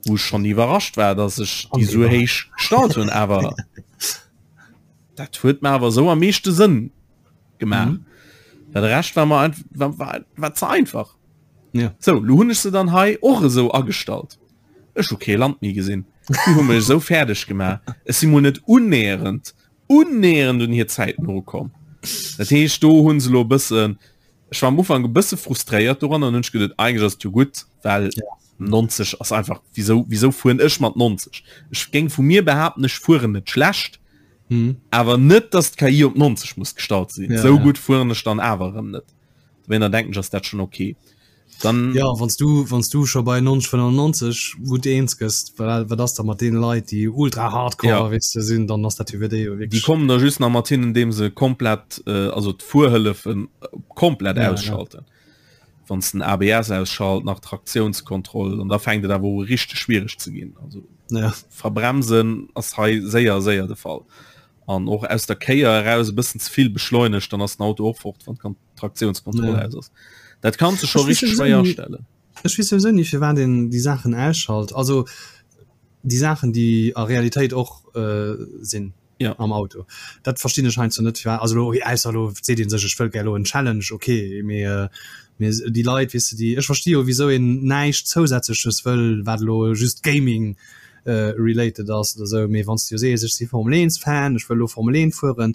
Wou ech schonn iwwerrascht war, dass ech déi sou héich gestallt hunn, awer dat huet mer awer sou am meeschte Sënn gemaach. Mhm. Well de Rescht war mer einfach, war, war, war ze einfach.
Ja.
Sou, lo hunn ech se dann hei och esou agestallt. Ech hu kee Land méi gesinn. Déi hu mech esou fäerdeg gemaach. Ech si mol net unnäherend, unnäherend un hir Zäiten erukomm. Dat heescht, do hu se lo e bëssen Ech war am Ufank e bësse frustréiert doran an hunn ech geduet, eigentlech ass et jo gutt, well 90 ass einfach, wieso, wieso fueren ech mat 90? Ech géing vu mir behaapten, ech fueren net schlecht,
mhm.
awer net, dass d'KI op 90 muss gestallt sinn.
Ja,
Sou
ja.
gutt fueren ech dann awer erëm net. Dowéinter denken ech, ass dat schonn okay. Dann
Ja, wanns du, wanns du scho bei 90, 95 gutt eens gëss, wat, wat ass da mat deene Leit, déi ultra hardcore
Ja.
weess de sinn, dann ass dat jo fir déi jo
Déi
wierklech.
kommen da just nach mat hin, indem se komplett, äh, also d'Fuerhëllefen komplett
Ja, ja.
ausschalten. Wann s den ABS ausschalt, nach Traktiounskontroll an da fänkt et awer u richteg schwiereg ze ginn. Also
ja.
verbremsen ass hei séier séier de Fall. An och aus der Kéier eraus e bëssen ze vill beschleunegt, dann ass den Auto och fort, wann d'Traktiounskontroll
ja.
aus ass. Dat kanns du scho richteg schwéier astellen.
Ech weess souwisou ni firwat een déi Saachen ausschalt. Also déi Saachen déi a Realitéit och äh, sinn.
ja.
am Auto. Dat verstinn ech heiansdo net firwat, also elo ausser elo seet een sech ech wëll gär elo en Challenge, ok, mee äh, mee déi Leit weess de déi, ech versti jo wisou een näischt zousätzleches wëll wat elo just Gaming äh, related ass oder sou, mee wann s de jo sees ech si Formel 1 Fan, ech wëll elo Formel 1 fueren,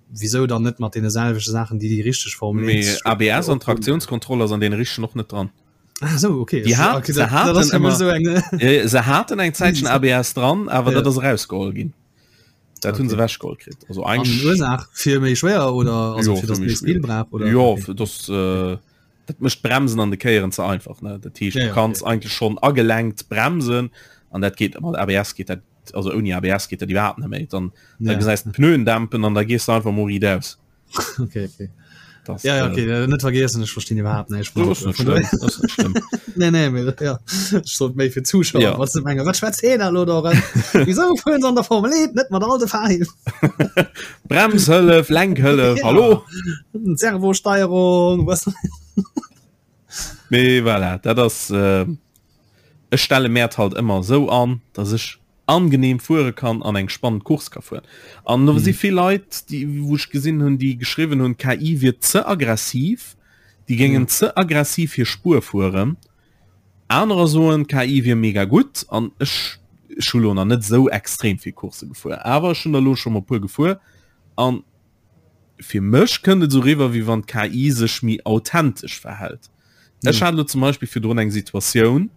wisou dann net mat deene selwechte Saachen déi déi richteg Formel 1
Mee ABS an Traktiounskontroll ass an deene richtegen och net dran.
Ah, so, okay.
Die hat, okay, se haten immer so eng, se haten eng Zäitchen ABS dran, awer ja. dat ass erausgeholl ginn. Dat okay. hunn se ewechgeholl kritt. Also
eigentlich Ursaach fir méi schwéier oder also
jo,
fir dass méi Speed brauch
oder Jo okay. das, äh, dat mécht Bremsen an de Kéieren ze einfach ne. Dat heescht ja, du kanns okay. eigentlich schon agelenkt bremsen an dat geht mat ABS geht dat also ouni ABS geht dat iwwerhaapt net méi. Dann, ja. dann gesäis d'Pneuen dämpen an da gees du einfach mol riit aus.
Okay, okay. Das, ja, ja, okay, äh, net vergessen ech verstinn überhaupt nicht nee, nee, mir, ja. sollt méi fir Zuschauer
ja.
was menge wat schwätzt heen elo do Wieso fuhren se an der Formel 1 net mat all de Fahrhilfen
Bremshëllef, Lenkhëllef, ja. hallo
Servosteierung was
Mee voilà, dat ass äh, ech stelle Mäert halt ëmmer esou an, dass ech angenehm fuere kann an eng spannend Course ka fueren. An do si mhm. vill Leit, déi wou ech gesinn hunn, déi geschriwwen hunn, KI wier ze aggressiv, déi géingen mhm. ze aggressiv hir Spuer fueren. Anerer soen KI wier mega gutt an ech ech hu lo nach net sou extrem vill Course gefuer, awer ech hunn der lo scho mol puer gefuer an fir mech kënnt et sou riwwer wéi wann d'KI sech méi authentesch verhält. Ech hat lo zum Beispill virdrun eng Situatioun,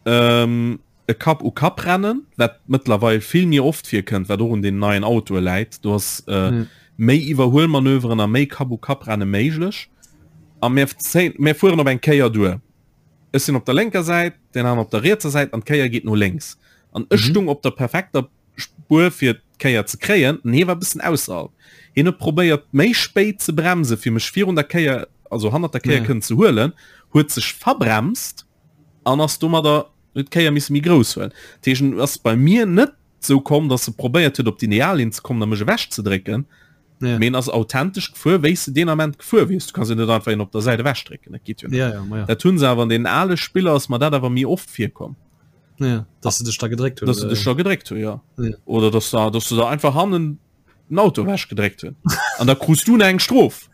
ähm, e Kapp u Kapp rennen, wat mëttlerweil vill méi oft virkënnt, wat och un den neien Autoe läit. Do ass äh, méi Iwwerhuelmanöveren a méi Kapp u Kapp renne méiglech. A mir, mir fueren op eng Kéier duer. Ech sinn op der lénker Säit, deen aneren op der rietser Säit an d'Kéier geet no lénks. An ech stung op der perfekter Spuer fir d'Kéier ze kréien, an hie war e bëssen ausserhalb. Hien huet probéiert méi spéit ze bremsen, fir mech virun der Kéier, also hannert der Kéier kënnen ze huelen, huet sech verbremst an ass domadder, huet d'Kéier misse méi grouss huelen. Dat heescht, en ass bei mir net sou komm, datt e probéiert huet op d'Ideallinn ze kommen a mech ewechzedrécken, mee en ass authentesch gefuer, wéi s de deen Ament gefuer wiers. Du kanns jo net einfach een op der Säit ewechdrécken, dat geet jo net. Dat hu se awer an deenen ale Spiller ass mer dat awer méi oft virkomm.
Ja, dass se dech da gedréckt hunn.
Dass se dech da gedréckt hunn, ja. ja. Oder dass da, dass du da einfach hannen den Auto wäsch gedréckt hunn. An da krus du eng Strof.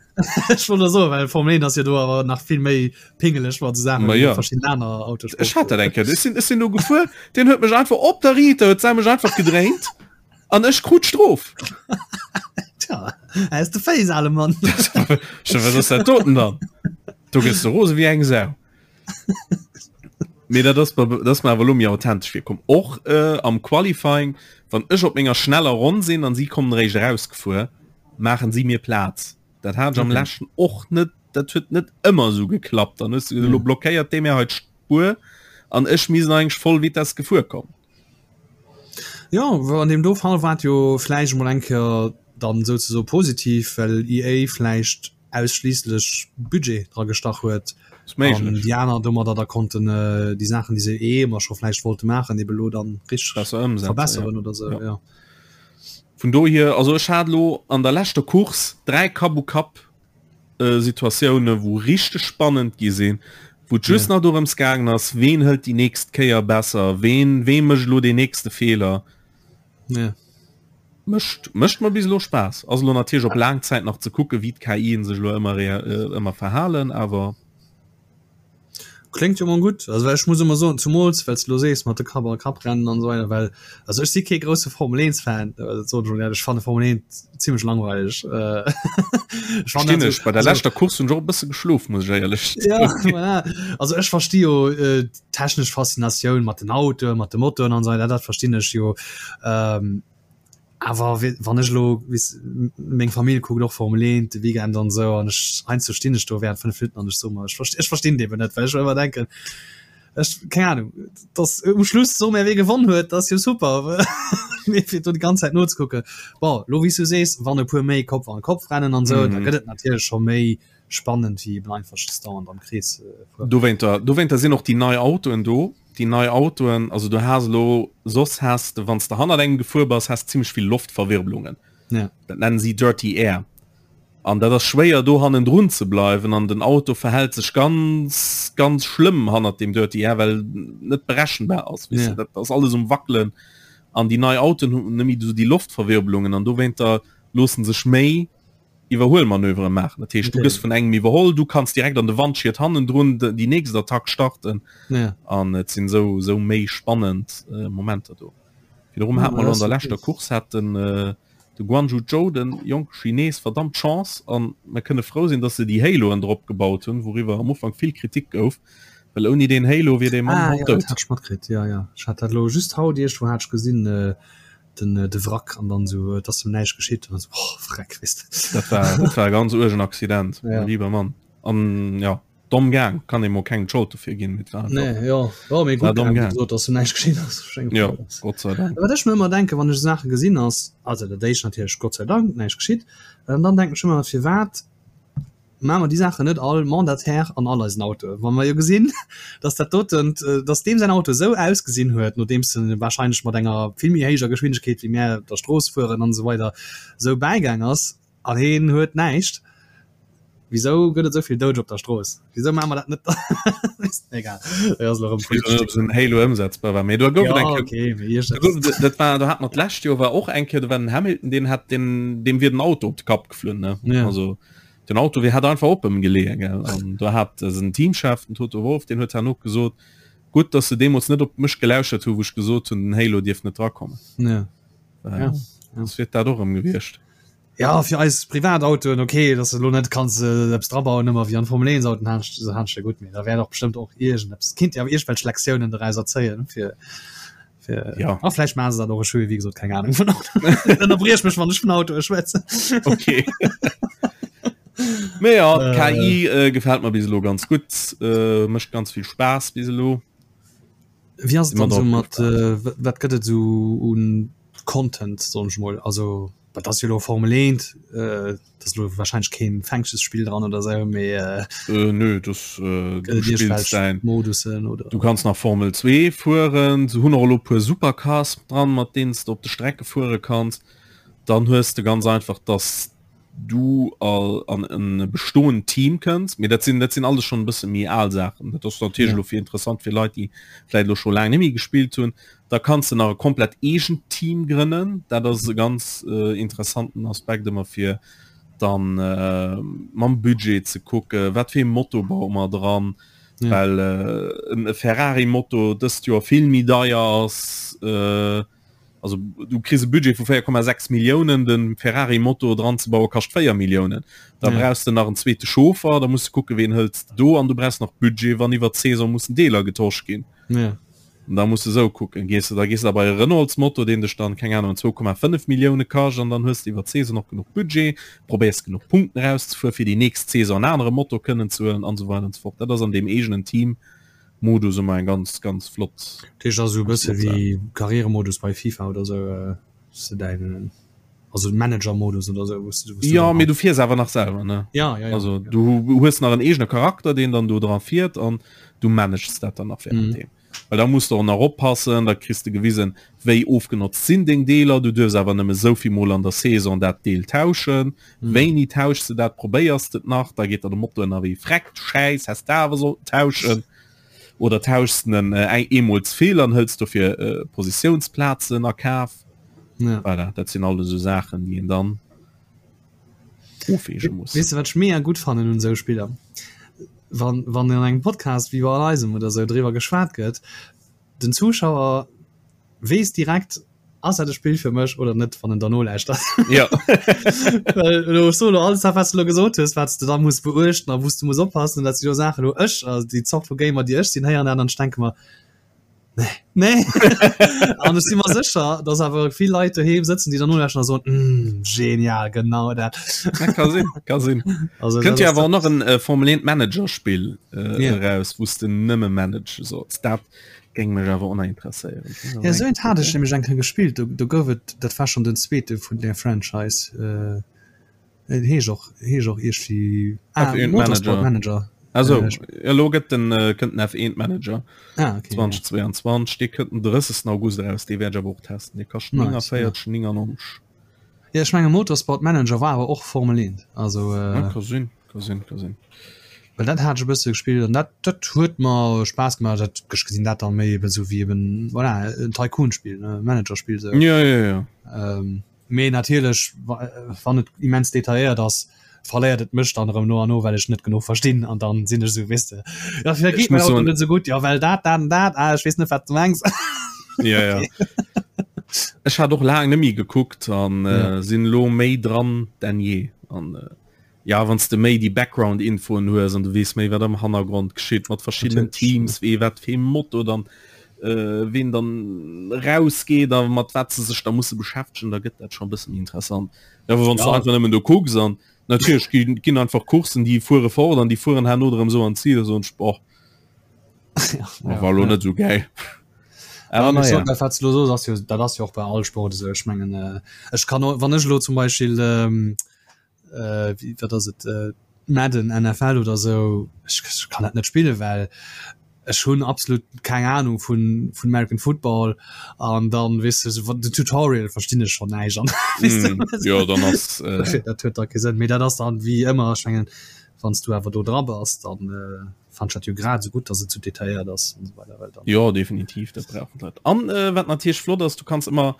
Ech wollt so, well Formel 1 ass jo do awer nach vill méi pingeleg mat Saachen
Ma ja.
verschiedenen aner Autosport.
Ech hat dat eng Kéier. Ech sinn, ech sinn do gefuer, deen huet mech einfach op der Riiter, huet se mech einfach gedréint an ech krut d'Strof.
Tja, aus de Féiss, ale Mann.
Wat ass dat doten dann? Do gëss du rose wéi eng Sau. Mee dat ass dat ass mir awer lo méi authentesch virkomm. Och äh, am Qualifying, wann ech op menger schneller Ronn sinn an si kommen eréischt erausgefuer, maachen si mir Plaz. Dat hat ech am okay. leschten och net, dat huet net ëmmer esou geklappt. Dann hues du gesot, lo blockéiert dee mir hei d'Spuer an ech misst eigentlech voll Vitesse gefuer kommen.
Jo, an deem do Fall war et jo vläicht emol eng Kéier dann souzesoe positiv, well EA vläicht ausschliisslech Budget dra gestach huet an déi aner domadder da konnten déi Saachen, déi se eh ëmmer scho vläicht wollte maachen, ebe lo dann richteg
besser ëmsetzen,
verbesseren oder sou,
ja. Vun dohier, also ech hat elo an der leschter Course 3 Kapp-u-Kapp Situatioune wou richteg spannend gi sinn, wou et just nach dorëms gaangen ass, ween hëlt déi nächst Kéier besser, ween wee mécht elo deen nächste Feeler.
Ja.
Mécht mécht mer bis elo Spaass. Ass elo natierlech op laang Zäit nach ze kucken, wéi d'KIen sech elo ëmmer rea ëmmer verhalen, awer.
Kléngt jo mol gutt. Also well ech muss ëmmer soen, zumools well s de elo sees mat de Kapp a Kapp rennen an esou weider, well also ech si kee grousse Formel 1 Fan, dat soen ech mol éierlech, ech fanne Formel 1 zimmlech langweileg.
Ech fannen Verstinn ech. Bei der leschter Course hunn ech och e bësse geschlof, muss ech éierlech
Ja, voilà. Also ech versti jo d'technesch Faszinatioun mat den Autoen, mat de Motoren an esou weider, dat verstinn ech jo. Ähm, awer wann ech elo weess meng Famill kuckt och Formel 1 de Weekend an esou an ech heiansdo stinn ech do während 5 Minutten an ech soe mer, ech verst ech verstinn et eben net, well ech ëmmer denken, ech keng Ahnung, dass um Schluss soe mer wee gewonn huet, dat ass jo super, mee fir do déi ganz Zäit nozekucken. Bon, elo wéi s du sees, wann e puer méi Kopf an Kopf rennen an esou, da gëtt et natierlech scho méi. Spannend wéi eben einfach just dauernd am Krees
fueren. Dowéinter, dowéinter sinn och déi nei Autoen do. Déi nei Autoen, also du has elo, soss has de, wann s de hannert engem gefuer bass, has de zimmlech vill Loftverwirbelungen.
Ja.
Dat nennen si Dirty Air. An dat ass schwéier do hannendrun ze bleiwen an den Auto verhält sech ganz, ganz schlëmm hannert deem Dirty Air, well net berechenbar ass, weess de.
Ja.
Dat ass alles um Wackelen. An déi nei Autoen hunn net méi esou déi Loftverwirbelungen an dowéinter loosse sech méi Iwwerhuelmanövere maachen. Dat heescht, du gëss vun engem iwwerholl, du kanns direkt an de Wandschiet hannendrun déi nächst Attack starten.
Ja.
An et sinn esou esou méi spannend äh, Momenter do. Virdrun hat mer an der leschter Course hat den äh, de Guanyu Zhou, den jonke Chines, verdammt Chance an mer kënne frou sinn, datt se déi Haloen drop gebaut hunn, wouriwwer am Ufank vill Kritik gouf, well ouni deen Halo wier dee Mann
ah,
haut
ja,
dout.
Dat hat ech matkritt, ja, ja. Ech hat dat elo just haut iergendwou hat ech gesinn, äh, den de Wrack an dann sou et ass em näischt geschitt an dann sou oh Freck weess de.
Dat war dat war e ganz uergen Accident,
Ja.
mein lieber Mann. An ja, domm gaang, kann ee mol kengem d'Schold dofir ginn, mee et war einfach
Nee, jo, jo, mee
war
gutt
domm
gaang, wéi
gaang.
gesot, dass em näischt geschitt ass. Ech denken,
Jo,
dat ass.
Gott sei Dank.
Wat ech mir ëmmer denken, wann ech esou Saache gesinn ass, also dat éischt natierlech Gott sei Dank näischt geschitt, an dann denken ech ëmmer, firwat Maache mer déi Saachen net all mandataire an all eisen Autoen, wa mer jo gesinn, dass dat doten, dass deem säin Auto esou ausgesinn huet, nodeems en wahrscheinlech mat enger vill méi héijer Geschwindegkeet wéi mär op der Strooss fueren an esou weider esou bäigaang ass an heen huet näischt. Wisou gëtt et esou vill Doudeger op der Strooss? Wisou maache mer dat net? Egal, dat ass elo erëm
Ech weess net, ob esou en Halo ëmsetzbar war, mee do gouf et eng
Jo,
Kéier,
okay, mee
do gouf et, dat war, do hat mer d'lescht Joer war och eng Kéier, do war den Hamilton, deen hat den, deem wier den Auto op de Kapp geflunn, ne?
Ja.
Also Den Auto wéi hat einfach op em geleeën gell an do hat den Teamchef den Toto Wolff deen huet herno gesot gutt dass se deemools net op mech gelauschert hu wou ech gesot hunn den Halo dierf net drakommen.
Ja.
Äh,
Ja.
Soss wier dat och erëm gewiescht.
Ja fir eis Privatautoen okay, dass de lo net kanns äh, eppes drabauen ëmmer wéi an Formel 1 Autoen hanscht hanscht gutt, mee da wär och bestëmmt och iergendeppes kinnt Dir awer iergendwelch Lektiounen doraus erzéien fir Fir,
ja.
ah, vielleicht machen sie dat och ech hu wéi gesot keng Ahnung vun Auto. Ënnerbriech mech wann ech vun Autoe schwätzen.
Okay. Mee ja, äh, KI äh, gefällt mir bis elo ganz gutt, äh, mécht ganz vill Spaass bis elo.
Wie ass et dann so mat äh, wat gëtt et so un Content soen ech mol also dat ass jo lo Formel 1 äh, dat ass lo wahrscheinlech keen Fänkchesspill dran oder sou mee
äh, Äh, nö, das, äh,
gëtt
du
et
spills
iergendwelch
dein
Modussen oder
Du kanns nach Formel 2 fueren, se hunn och elo puer Supercars dran, mat deenen s de op de Strecke fuere kanns. Dann hues de ganz einfach, dass du all an en bestoend Team kënns, mee dat sinn dat sinn alles schonn e bësse méi al Saachen. Dat ass natierlech
Ja.
elo fir interessant fir Leit, déi vläicht elo scho laang net méi gespillt hunn. Da kanns de nach e komplett eegent Team grënnen. Dat ass e ganz interessanten Aspekt ëmmer fir dann mam Budget ze kucke wat fir ee Moto baue mer dran, well e Ferrari-Moto dëst Joer vill méi deier ass. Also du kriss e Budget vu 4,6 Milliounen, de Ferrari-Moto dran ze baue kascht 4 Milliounen. Da brauchs de nach en zweete Chauffer, da muss de kucke ween hëls de do an du brauchs nach Budget wann iwwer d'Saison mussen Deeler getosch ginn.
Ja.
An da muss de sou kucken, gees de da gees de da bei e Renaults-Moto, deen dech dann, keng Ahnung, 2,5 Millioune kascht an dann hues de iwwer d'Saison och genuch Budget, probéiers genuch Punkten erauszefueren, fir déi nächst Saison en anere Moto kënnen ze huelen an esou weider an esou fort. Dat ass an deem eegenen Team-Modus ëmmer eng ganz, ganz flott,
Dat heescht also e
ganz
bësse
flott Saach.
wéi Karrieremodus bei FIFA oder sou, wou s de däin, also Manager-Modus oder sou, wou s de, wou s de
Jo,
dann
mee du fiers awer nach selwer, ne?
Ja, ja, ja.
Also du hues nach en eegene Charakter, deen dann do dra fiert an du manages dat dann nach während deem. Well da muss de och nach oppassen, da kriss de gewisen, wéi ofgenotzt sinn deng Deeler, du duerfs awer nëmme souvill Mol an der Saison dat Deel tauschen, wéini tauschs de dat, probéiers de et nach, da geet der de Motor ënnerwee freckt, schäiss, häss de awer sollten tauschen oder tauschs de en eemol ze vill an hëls dofir Positiounsplazen a Kaf. Voilà, dat sinn alles esou Saachen, déi een dann ofwäge muss.
Weess de wat ech mega gutt fannen un esou Spiller? Wann, wann an engem Podcast wéi bei eisem oder esou driwwer geschwat gëtt, den Zuschauer weess direkt, ass dat e Spill fir mech oder net, wann en der nolauschtert.
Ja.
Well elo, ech soen elo alles dat wat s de elo gesot hues, wat s de da muss beuechten a wou s de muss oppassen, dat si jo Saachen, wou ech, also déi Zort vu Gamer déi ech sinn, héieren dat an ech denke mer, Nee. Nee. An ech si mer sécher, dass awer vill Leit doheem sëtzen, déi dann nolauschteren a soen, mm, genial, genau dat.
Ja, ka sinn, ka sinn.
Also,
Kënnt
dat
jo
ass
awer och nach en äh, Formel 1 Manager-Spill äh,
Ja.
eraus, wou s de nëmme manage solls. Dat géing mech awer och nach interesséieren.
Ja, esou eent hat ech nämlech eng Kéier gespillt. Do, do gouf et, dat war schonn den zweete vun där Franchise. Äh. Et heescht och heescht och iergendwéi ah,
F1 Motorsport Manager. Also äh, elo gëtt den äh, kënnt den F1 Manager ah, okay, 2022 ja. dee kënnt den 30. August eraus, dee wäert ech awer och testen. Dee kascht nice, 49,99. Ja.
Ja, ech menge Motorsport Manager war awer och Formel 1. Also
äh, ja, ka sinn, ka sinn, ka sinn.
Well dat hat ech e bësse gespillt an dat dat huet mer Spaass gemaach. Dat ech gesinn dat dann méi eben sou wéi eben voilà, en Tycoon-Spill, ne Manager-Spill
sou. Ja, ja, ja.
Ähm, Mee natierlech, wann et immens detailléiert ass, verléiert et mech dann erëm no an no, well ech net genuch verstinn an dann sinn ech esou, weess de, jo firwat geet mäin Auto net esou gutt, jo well dat, dat an dat, ah ech weess net wat s de mengs.
Ja, ja. Ech hat och laang net méi gekuckt an sinn elo méi dran denn je an. Ja wann s de méi déi Background-Infoen hues an du weess méi wat am Hannergrond geschitt mat verschiddenen Teams, wee wat fir ee Motto dann ween dann rausgeet a mat wat se sech da musse beschäftegen, da gëtt dat scho e bësse méi interessant. Awer wann s du einfach nëmmen do kucks an natierlech ginn ginn einfach Courssen déi fuere fort an déi fueren herno erëm esou an d'Zil, da soen ech boah, war elo net esou gäil.
Awer na ja. Dat wat s de elo soos ass jo, dat ass jo och bei all Sport esou. Ech mengen ech kann och, wann ech elo zum Beispill äh, wie, wat ass et äh, Madden NFL oder sou ech, ech kann dat net spille well ech hunn absolut keng Ahnung vun vun American Football an dann weess de sou den Tutorial verstinn ech schon näischt an
mm, ja, dann ass
äh... dat huet da kee Sënn mee dat ass dann wéi ëmmer ech mengen wann s du awer do dra bass dann äh, fand ech dat jo grad sou gutt dass et sou detailléiert ass an sou weider
well dann Jo definitiv dat brauchen d'Leit. An äh, wat natierlech flott ass, du kanns ëmmer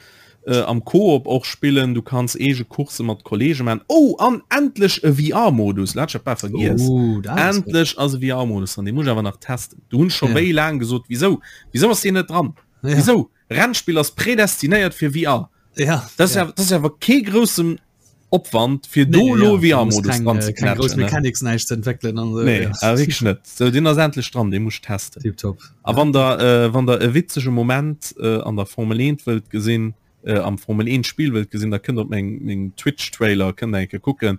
äh, am Koop och spillen, du kanns eege Coursse mat Kollege man. Oh an endlech e VR-Modus, dat hat ech bal vergiess.
Oh, dat
ass gutt. Endlech ass e VR-Modus dran, dee muss ech awer nach testen. Do hunn ech scho Ja. wéi laang gesot, wisou wisou ass deen net dran?
Ja.
Wisou? Rennspill ass prädestinéiert fir VR.
Ja,
Dat ass
ja.
ja, dat ass awer kee groussen Opwand fir do
Nee,
lo
ja, du muss
VR-Modus
keng,
dran
äh,
ze
keng grouss
knätschen, ne?
Mechanics näischt ze entwéckelen an
esou, Nee,
ja.
awer wierklech net. Sou, deen ass endlech dran, dee muss ech testen.
Tiptop.
A
Ja.
wann der, äh, wann der e witzege Moment äh, an der Formel 1 wëllt gesinn, äh, am Formel 1 Spill wëllt gesinn, da kënnt op meng, meng Twitch-Trailer, kënnt der eng Kéier kucken,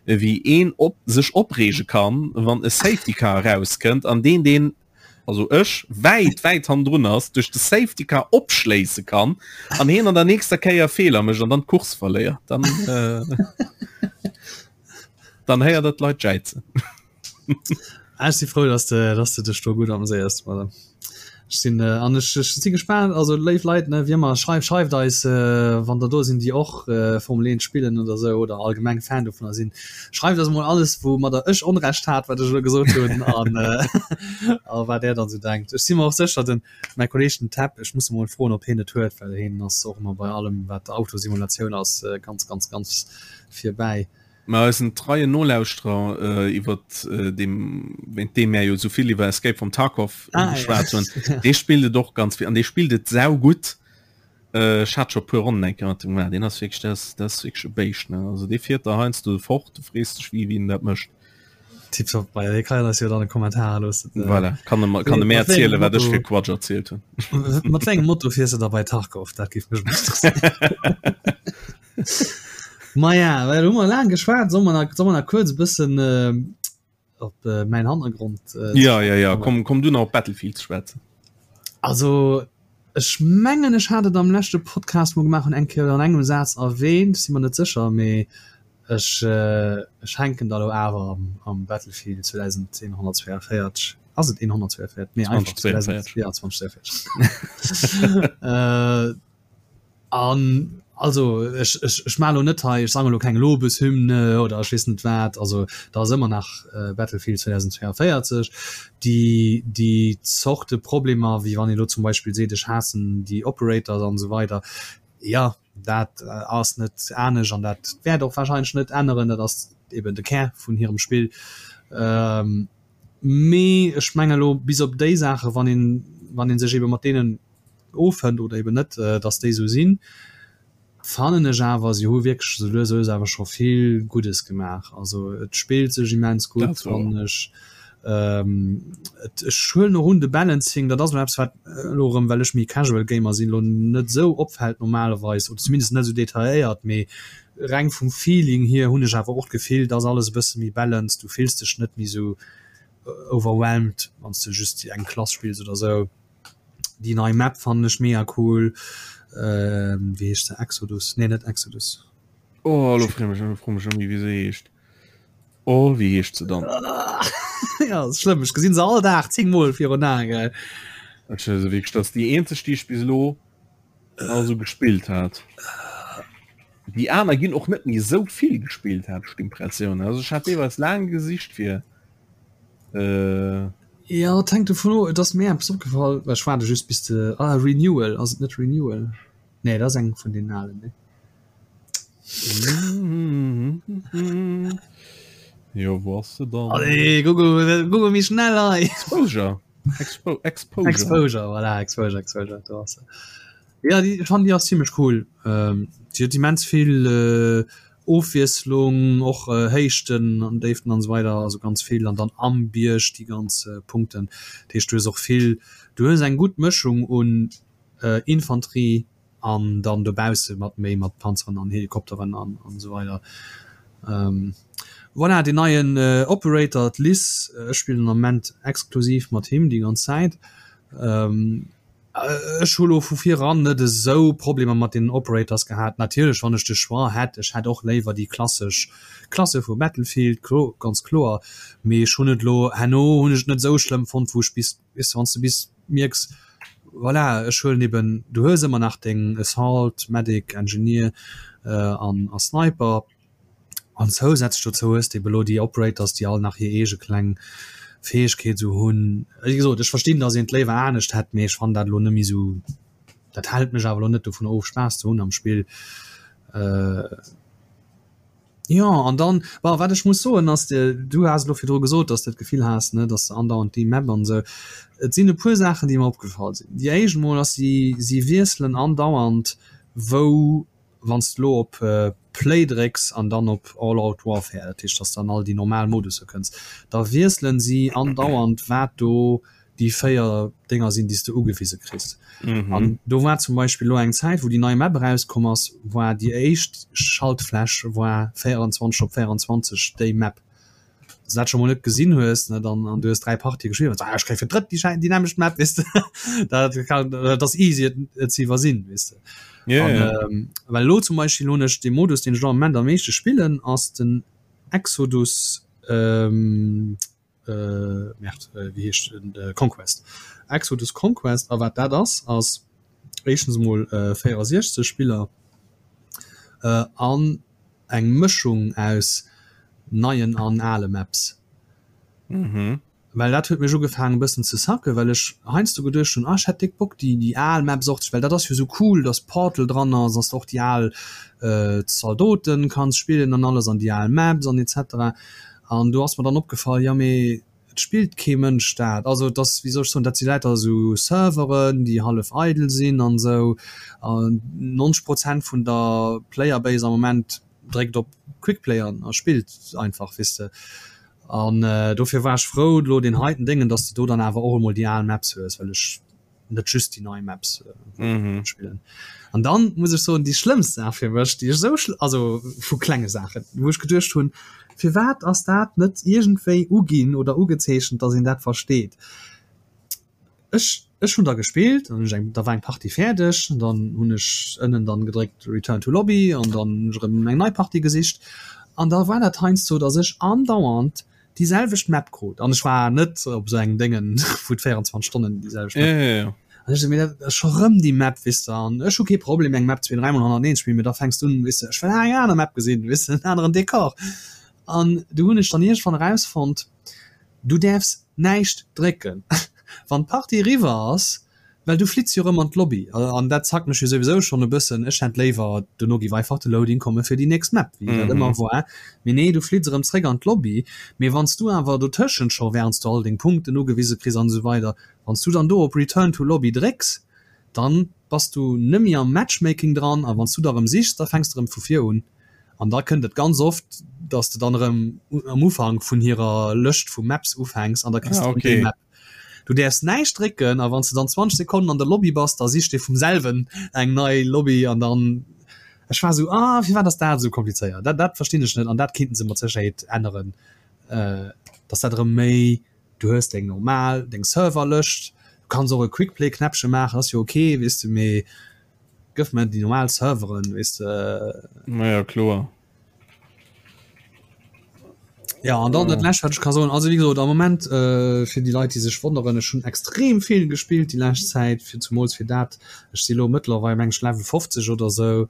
wéi een op, sech opreege kann, wann e Safety Car erauskënnt an deen, deen also ech, wäit, wäit hannendrun ass, duerch de Safety Car opschléisse kann an hien an der nächster Kéier Feeler mécht an dann d'Course verléiert, dann, äh, dann héiert der d'Leit jäizen.
Ah, ech si frou, dass de, dass de dech do gutt ameséiers, voilà. Ech sinn, äh, an ech, ech si gespaant, also léif Leit, ne, wéi ëmmer, schreift, schreift eis, äh, wann der do sinn, déi och, äh, Formel 1 spillen oder sou oder allgemeng Fan dovunner sinn. Schreift eis emol alles, woumadder ech Onrecht hat, wat ech elo gesot hunn, an, äh, a wat där dann esou denkt. Ech si mer och sécher, den, mäi Kolleeg, den Tab, ech muss e mol froen, ob hien et huet, well hien ass och ëmmer bei allem, wat Autosimulatioun ass, ganz, ganz, ganz virbäi.
Mä eisen treien Nolauschterer, iwwert deem, wéint deem mär jo esou vill iwwer Escape from Tarkov geschwat hunn, dee spillt et och ganz vill an dee spillt et saugutt. Ech hat scho e puer Ronnen eng Kéier mat him gemaach. Deen ass wierklech, dat ass, dat ass wierklech e Béischt, ne? Also dee fiert der heiansdo fort, du frees dech, wéi wien dat mécht.
Tiptop, ma dee kann eis jo dann e Kommentar loossen.
Voilà, kann e mer, kann e
Mat
mär
wéi engem
erzielen, wat ech
Motto,
fir Quatsch erzielt hunn.
mat wéi engem Motto fiers de da bei Tarkov? Dat géif mech mol interesséieren. Maja, well hu mer laang geschwat, solle mer nach, solle mer nach kuerz e bëssen op mäin Hannergrond
äh, Ja, ja, ja, komm, komm du nach op Battlefield ze schwätzen.
Also ech mengen ech hat et am leschte Podcast mol gemaach hunn eng Kéier an engem Saz erwähnt, si mer net sécher, mee ech äh, ech hänken da lo awer am, am Battlefield 2142. Ass et 142? Nee, einfach
2042.
Ja, 2042. äh, An also ech, ech, ech maache lo net hei, ech sange lo keng Lobeshymne oder ech weess net wat, also da ass ëmmer nach Battlefield 2042. Déi, déi Zorte Problemer, wéi wann ee lo zum Beispill seet, ech haassen déi Operators an esou weider, jo, dat ass net anescht an dat wäert och warscheinlech net änneren, dat ass eben de Kär vun hirem Spill. Mee ech menge lo bis op déi Saache, wann een, wann ee sech ebe mat deenen Offënnt oder eben net, dass déi esou sinn, fannen ech awer, si hu wierklech esou lues a lues awer scho vill Guddes gemaach. Also et spillt sech immens gutt, fannen ech. Et, ech huelen och un, de Balancing, dat ass elo eppes, wat elo erëm, well ech méi Casual Gamer sinn, elo net esou opfält normalerweis oder zumindest net esou detailléiert, mee reng vum Feeling hier hunn ech awer och d'Gefill, dass alles e bësse méi balanced, du fills dech net méi esou overwhelmed, wann s de just eng Klass spills oder esou. Déi nei Map fannen ech mega cool. Ähm, wéi heescht se? Exodus? Nee, net Exodus.
Oh, lo froe mech, froe mech ëmmi, wéi se heescht. Oh, wéi heescht se dann?
Ja, ass schlëmm. Ech gesinn se all Dag 10 Mol virun Aen, gell.
Ech se wierklech, dat ass déi eenzeg, déi ech bis elo also gespillt hat. Déi aner ginn och net méi esou vill gespillt, hat ech d'Impressioun. Also ech hat deelweis laang gesicht fir
äh, Ja, et hänkt dovun of, et ass mir eppes opgefall, well ech waarde just bis de, ah, Renewal, ass et net Renewal? Nee, dat ass eng vun den alen, ne?
Jo, wou ass se dann?
Allez, Google, Google méi schnell hei!
Exposure. Expo
Exposure. Exposure, voilà, Exposure, Exposure, do ass se. Ja, déi, ech fannen déi ass zimmlech cool. Ähm, déi huet immens vill äh, Ofwiesslung, och äh, Héichten an Déiften an esou weider, also ganz vill. An dann am Bierg déi ganz äh, Punkten. Dat heescht, du hues och vill, du hues eng gutt Mëschung un äh, Infanterie an dann dobausse mat méi mat Panzeren an Helikopteren an an esou weider. Ähm, voilà, deen neien äh, Operator, d'Liz, ech spillen am Moment exklusiv mat him déi ganz Zäit. Ähm, Ech hu lo vu vir eran net esou Problemer mat deenen Operators gehat. Natierlech wann ech de Choix hätt, ech hätt och léiwer déi klassesch Klasse vu Battlefield, ganz kloer, mee ech hunn et lo herno hunn ech et net esou schlëmm fonnt, wou ech bis, weess de, wann s de bis mierks, voilà, ech huelen eben, du hues ëmmer nach deng Assault, Medic, Engineer an a Sniper. An zousätzlech dozou hues de ebe lo déi Operators, déi all nach hir eege kleng Fäegkeet esou hunn. Wéi gesot, ech verstinn, datt een et léiwer anescht hätt, mee ech fannen dat elo net méi esou, dat hält mech awer elo net dovun of, Spaass ze hunn am Spill. Jo, an dann, bon, wat ech muss soen ass, du has elo virdru gesot, datt s de d'Gefill has, ne, datt s de andauernd déi Map an esou. Et sinn e puer Saachen, déi mer opgefall sinn. Déi éischt emol ass, si si wiesselen andauernd, wou Wann s de lo op Play drécks an dann op All Out Warfare, dat heescht dass de an all déi normal Modusse kënns, da wiesselen si andauernd wat do déi 4 Dénger sinn déi s de ugewise kriss. An do war zum Beispill lo eng Zäit wou déi nei Map erauskomm ass, war déi éischt Schaltfläch war 24 op 24 déi Map. Wann s de dat scho mol net gesinn hues, ne, dann an du hues 3 Partië gespillt, ah, ech kréie fir d'drëtt déi déi nämmlecht Map, weess de. Dat kann, dat ass easy et, et ze iwwersinn, weess de.
Ja,
An,
ja.
ähm, well elo zum Beispill hunn ech de Modus, deen ech elo am Moment am meeschte spillen, ass den Exodus, ähm, äh, Merde, äh, wéi heescht den, äh, Conquest. Exodus Conquest, a wat dat ass, ass éischtens emol äh, 64 Spiller, äh, an eng Mëschung aus neien an ale Maps.
Mhm.
Well dat huet mech ugefaangen e bëssen ze sacken, well ech heiansdo geduecht hunn, ah ech hätt déck Bock déi déi al Maps och ze, well dat ass jo sou cool, dass Portal dran ass, dass de och déi al Zaldoten kanns spillen an alles an déi al Maps an etc. An do ass mer dann opgefall, jo mee Et spillt kee Mënsch dat. Also et ass, wéi soll ech soen, dat si lauter esou Serveren, déi hallef eidel sinn an esou. An 90 Prozent vun der Playerbase am Moment dréckt op Quickplay an a spillt einfach, weess de. An dofir war ech frou elo deen heiten Déngen, datt s de do dann awer och emol déi al Maps hues, well ech net just déi nei Maps mhm. spillen. An dann muss ech soen, déi schlëmmst Saach fir mech, déi ech sou also vu klenge Saachen, wou ech geduecht hunn, firwat ass dat net iergendwéi uginn oder ugezeechent, datt een dat versteet. Ech ech hunn da gespillt an ech eng da war eng Partie fäerdeg, dann hunn ech ënnen dann gedréckt Return to Lobby an dann hunn ech erëm eng nei Partie gesicht an da war dat heiansdo, datt ech andauernd déi selwecht Map krut an ech war net op esou engem Déngen wou et 24 Stonnen déi selwecht Map
ja, ja, ja.
An ech sou, mee dat ass scho rëm déi Map, weess de, an ech hu kee Problem eng Map zwee, dräimol hannerteneen ze spillen, mee da fänks du un, weess de, ech wëll eng aner Map gesinn, weess de, en aneren Dekor. An du hunn ech dann iergendwann erausfonnt, du däerfs näischt drécken, wann d'Partie eriwwer ass, Well du flitts jo rëm an d'Lobby an dat zackt mech jo souwisou schonn e bëssen. Ech hätt léiwer, dono giff einfach de Loading komme fir déi nächst Map, wéi dat ëmmer war. Mee nee, du flitts erëm zréck an d'Lobby. Mee wann s du awer dotëschent scho, wärend s du all deng Punkten ugewise kriss an esou weider, wann s du dann do op Return to Lobby drécks, dann bass du nëmme am Matchmaking dran a wann s du da erëm sichs, da fänks de erëm vu vir un. An da kënnt et ganz oft, dass de dann erëm am Ufank vun hirer Lëscht vu Maps ufänks an da kriss
Ah,
de erëm déi
okay.
Map. Du däerfs näischt drécken a wann s de dann 20 Sekonnen an der Lobby bass, da sicht dee vum selwen eng nei Lobby an dann, ech war esou, ah firwat ass dat esou komplizéiert? Dat dat verstinn ech net an dat kinnten se mat Sécherheet änneren, dass dat erëm méi, du hues deng normal, deng Serverlëscht, du kanns och e Quickplay-Knäppche maachen, ass jo ok, weess de, mee. Gëff mer déi normal Serveren, weess de.
Naja, kloer.
Ja an dann dat lescht wat ech ka soen, also wéi gesot am Moment äh, fir déi Leit déi sech wonneren, ech hunn extrem vill gespillt déi lescht Zäit, fir zumools fir dat, ech si lo mëttlerweil meng ech Level 50 oder sou,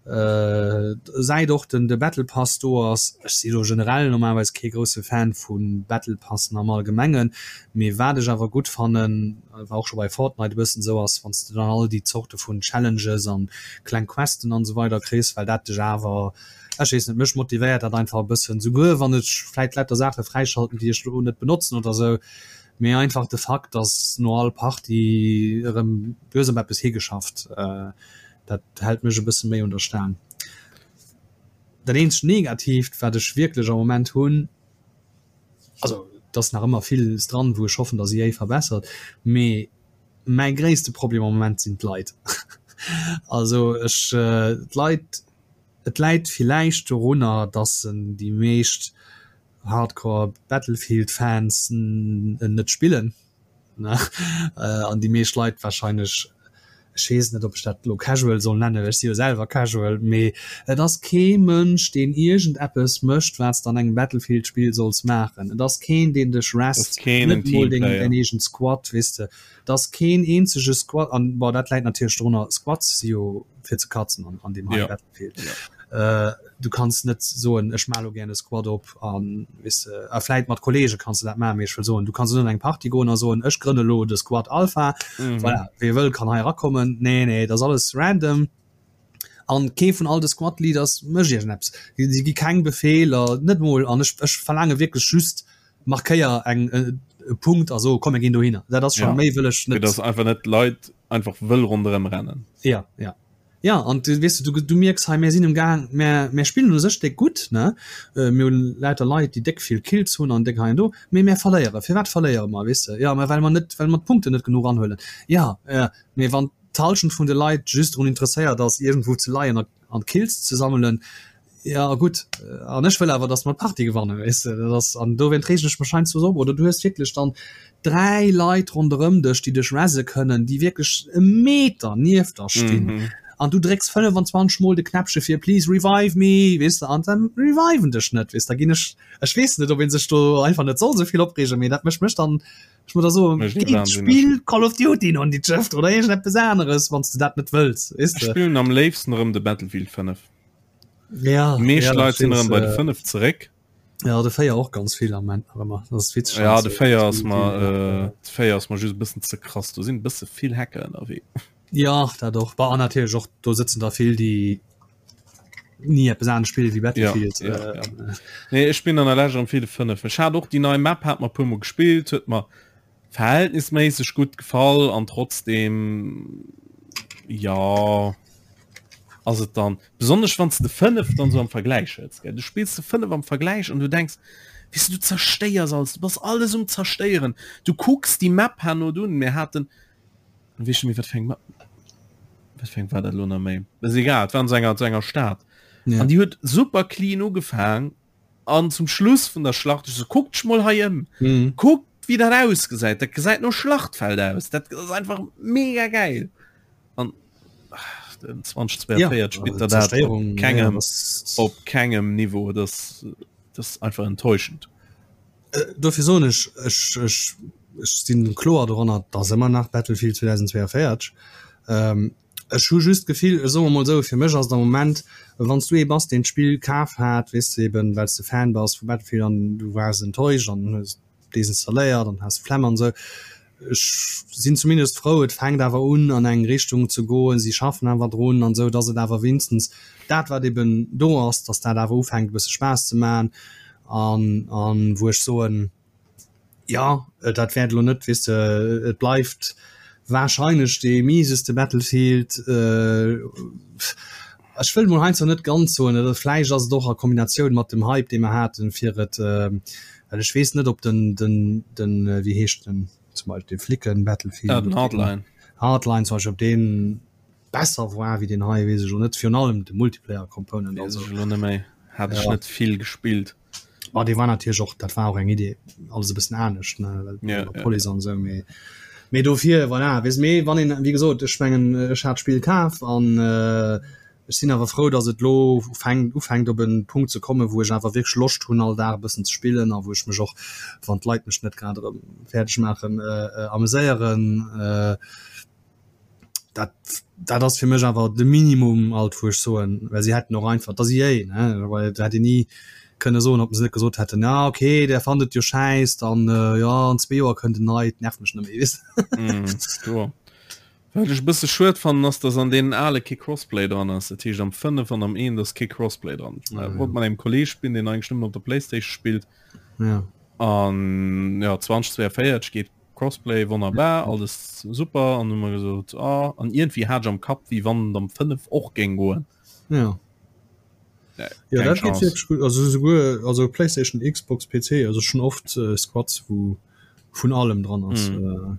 äh, säit och den de Battle Pass do ass. Ech si lo generell normalerweis kee grousse Fan vu Battle Passen am Allgemengen, mee wat ech awer gutt fannen, war och scho bei Fortnite e bëssen esou, ass wann s de dann all déi Zorte vun Challenges an kleng Questen an esou weider kriss, well dat dech awer Ech weess net, mech motivéiert dat einfach e bëssen, souguer wann ech vläit lauter Saache fräischalten, déi ech lo net benotzen oder sou, mee einfach de Fakt, dass no all Partie erëm, du hues op eppes higeschafft, dat hält mech e bësse méi un der Staang. Dat eenzegt Negatiivt, wat ech wierklech am Moment hunn, also et ass nach ëmmer villes dran, wou ech hoffen, dass EA verbessert, mee mäi gréisste Problem am Moment sinn d'Leit. Also ech, d'Leit, Et läit villäicht dorunner, dass en déi meescht Hardcore Battlefield Fans en net spillen an déi meescht Leit wahrscheinlech, ech weess net ob ech dat elo casual soll nennen, well ech si jo selwer casual, mee et ass kee Mënsch deen iergend eppes mécht wat s de an engem Battlefield Spill solls maachen. Et ass keen deen dech rest, net mol deng däin eegent Squad, weess de. Et ass keen eenzege Squad an bon dat läit natierlech dorunner, Squads si jo fir ze katzen an, an deem hei ja. Battlefield. Ja. Äh, du kanns net soen ech ma lo gär e Squad op an weess de, a vläit mat Kollege kanns du dat maachen, mee ech wëll soen, du kanns net an eng Party goen a soen ech grënne lo de Squad Alpha, mhm. voilà, wie wëll kann hei erakommen. Nee, nee, dat ass alles random. An kee vun all de Squad Leaders mécht iergendeppes. Si gi keng Befeeler, net mol an ech, ech verlaange wierklech just markéier eng e Punkt a so komm mir ginn dohinner. Dat ass schon ja. méi wëll ech
net. Dass einfach net Leit einfach wëll ronderëm rennen.
Ja, ja. Ja an du weess du, du mierks hei mir sinn um Gaang mir, mir spillen u sech déck gutt ne äh, mir hunn lauter Leit déi déck vill Kills hunn an déck hei an do, mee mir verléiere. Firwat verléiere mer weess de? Ja, mä well mer net well mer d'Punkten net genuch anhuelen. Ja, äh, mee wann d'Halschent vun de Leit just drun interesséiert ass iergendwou ze leien a an Kills ze sammelen, Ja gutt, an ech wëll awer, datt mer d'Partie gewannen, weess de. Dat ass, an dowéint reegen ech mech heiansdo esou op. Oder du hues wierklech dann 3 Leit ronderëm dech, déi dech resse kënnen, déi wierklech e Meter nieft der stinn. Mhm. An du drécks 25 mol de Knäppche fir please revive me, weess de, an dann reviven dech net, weess de. Da ginn ech, ech weess net, ob ee sech do einfach net soll esou vill opreegen, mee dat mécht mech dann, ech muss da soen,
Mécht mech
geet
wahnsinneg.
spill Call of Duty an déi Schëft oder iergendeppes aneres, wann s de dat net wëlls, weess
Ech
de.
spillen am léifsten erëm de Battlefield 5.
Ja,
Meescht
ja,
Leit sinn erëm bei de
äh,
5 zeréck.
Ja, de 4 och ganz vill am Moment nach ëmmer. Das ist witzeg.
Ja, de 4 ass mer äh, de 4 ass mer just e bëssen ze krass. Do sinn e bësse vill Hacker ënnerwee.
Ja, dat och. Bah, an natierlech och, do sëtzen der vill, déi ni eppes anescht spille wéi Battlefield.
Ja, ja, ja. Nee, ech spillen an der Lescht erëm vill de 5. Ech hat och déi nei Map, hat mer e puermol gespillt, huet mer verhältnisméisseg gutt gefall an trotzdem ja ass et dann besonnesch wann de 5 dann so am Vergleich hues gell du spills de 5 am Vergleich an du denkst weißt du, du zerstéiers alles du bass alles um zerstéieren du kucks die Map herno dunn mir haten weess net méi wat fir eng Map wat fir eng war dat lo nach méi ass egal et war an so enger so enger Stad
Ja.
an die huet super clean ugefaang An zum Schluss vun der Schlacht, ech so, kuckt dech mol hei ëm.
Mhm.
Kuckt, wéi dat ausgesäit. Dat gesäit no Schlachtfeld aus. Dat ass einfach mega geil. An ach, den 2042
ja,
spillt der dat op kengem,
ja,
op kengem Niveau. Das, das ist einfach enttäuschend.
Äh, dofir soen ech, ech, ech, ech sinn kloer doranner, dass ëmmer nach Battlefield 2042. Ähm, Ech hu just d'Gefill, ech soe mol esou, fir mech ass et am Moment, wann s du ee bass, deen d'Spill kaf hat, weess de, eben well s de Fan bass vu Battlefield an du waars enttäuscht an hues et desinstalléiert an has d'Flemm an esou. Ech sinn zumindest frou, et fänkt awer un an eng Richtung ze goen, si schaffen awer drun an esou, datt et awer wéinstens dat wat eben do ass, datt dat awer ufänkt e bësse Spaass ze maachen an an wou ech soen, Jo, dat wäert elo net, weess de, et bleift warscheinlech dee mieseste Battlefield. Ech wëll mol heiansdo net ganz soen, oder vläicht ass et och a Kombinatioun mat dem Hype, dee mer haten, fir et, well ech weess net, ob den, den, den, wéi heescht den zum Beispill, dee Flicken-Battlefield,
Den Hardline.
Hardline zum Beispill, ob deen besser war wéi deen hei, weess ech elo net, virun allem de Multiplayer-Component.
Weess ech elo net méi, hat ech net vill gespillt.
Ma dee war natierlech och, dat war och eng Idee, alles e bëssen anescht, ne, well
Ja,
mat
ja,
Police an esou, mee. Mee dofir, voilà, weess mee wann een, wéi gesot, ech mengen ech hat d'Spill kaf an ech sinn awer frou, datt et lo fänkt ufänkt op en Punkt ze kommen, wou ech awer wierklech Loscht hunn all Dag e bëssen ze spillen a wou ech mech och, wann d'Leit mech net grad erëm fäerdeg maachen, ameséieren. Dat dat ass fir mech awer de Minimum alt wou ech soen, well si hätten och einfach, et ass EA ne, well et hätt een ni kënne soen, ob se net gesot hätten, ja okay, där fannt et jo schäiss, dann jo an zwee Joer kënnt en neit, nervt mech net méi weess
de. Kloer. Wat ech e bësse schued fannen ass, datt an deenen ale kee Crossplay dran ass, dat heescht am 5 an am 1 ass kee Crossplay dran. Ech wollt mat engem Kolleg spillen, deen eigentlech nëmmen op der Playstation spillt an jo 2042 geet Crossplay wonnerbar, alles super an hu mer gesot ah, an iergendwéi hat ech am Kapp wéi wann et am 5 och géing goen.
Ja. Ja, ja dat geet wierklech gutt. Also souguer also Playstation, Xbox, PC, also schon oft äh, Squads wou vun allem dran ass. Mm.
Äh.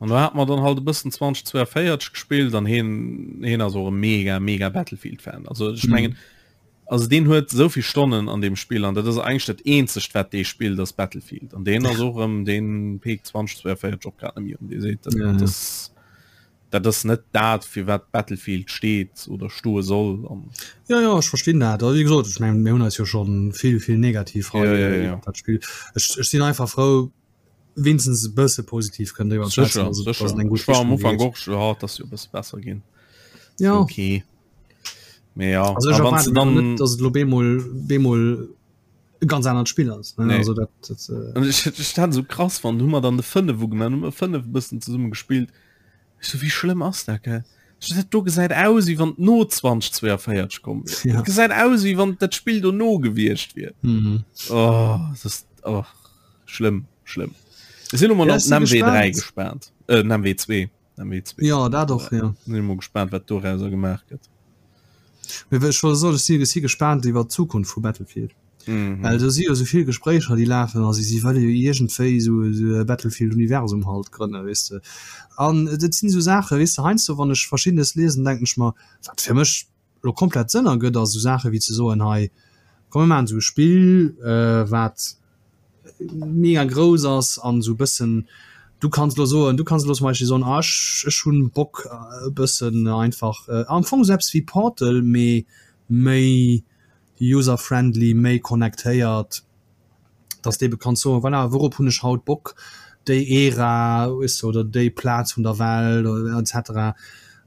An do hat mer dann halt e bëssen 2042 gespillt an heen heen ass och e mega mega Battlefield Fan. Also ech mengen mm. Also deen huet esou vill Stonnen an deem Spill an dat ass eigentlech dat eenzegt wat dee spillt ass Battlefield an deen ass och erëm deen peekt 2042 och grad net méi un. Dee seet dat ja, ja. dat ass net dat fir wat Battlefield steet oder stoe soll
an Ja ja ech verstinn dat. Also, wéi gesot ech mengen mir hunn eis jo schonn vill vill negativ
hei ja, ja, ja.
dat Spill. Ech, ech sinn einfach frou wéinstens e bësse positiv kënnen driwwer
schwätzen, dass et, dass et eng gutt Richtung geet. Ech war am Ufank och, ja, dass jo e bësse besser ginn.
Ja.
Okay. Mee ja.
Also ech erwaarde dann net, dass et lo bemol, bemol e ganz anert Spill ass. Ne?
Nee. Also dat, dat, äh... Ech, ech dat esou krass fand, hu mer dann de 5 ugemaach, hu mer 5 e bëssen zesumme gespillt. Ech so, wéi schlëmm ass dat, gell? Ech so, dat do gesäit aus, wéi wann et no 2042 komm wier. Ja. Dat gesäit aus, wéi wann dat Spill dono gewiescht wier.
Mhm.
Oh, das ist, oh. Schlëmm, schlëmm. Ech sinn emol
Ja,
op
ech si
den MW3
gespaant.
gespaant. Äh, den MW2. MW2.
Ja, dat och, ja.
Sinn emol gespaant, wat dorauser gemaach gëtt.
Mee ech wollt soen, ech si, ech si gespaant iwwer d'Zukunft vu Battlefield.
Mhm.
Well do si jo esou vill Gespréicher, déi lafen a si, si wëlle jo iergendwéi esou, esou e Battlefield-Universum halt grënnen, weess de. An et sinn esou Saachen, weess de, heiansdo wann ech Verschiddenes liesen, denken ech mer, wat fir mech lo komplett Sënn ergëtt, ass esou Saache wéi ze soen, hei komm mir maachen esou e Spill, wat mega grouss ass an esou e bëssen, du kanns elo soen, du kanns elo zum Beispill soen, ah ech ech hunn Bock e bëssen einfach am Fong esou eppes wéi Portal, mee méi user-friendly, méi connectéiert. dass de ebe kanns soen, voilà, wourop hunn ech haut Bock, déi Ära, weess de, oder déi Plaz vun der Welt oder et cetera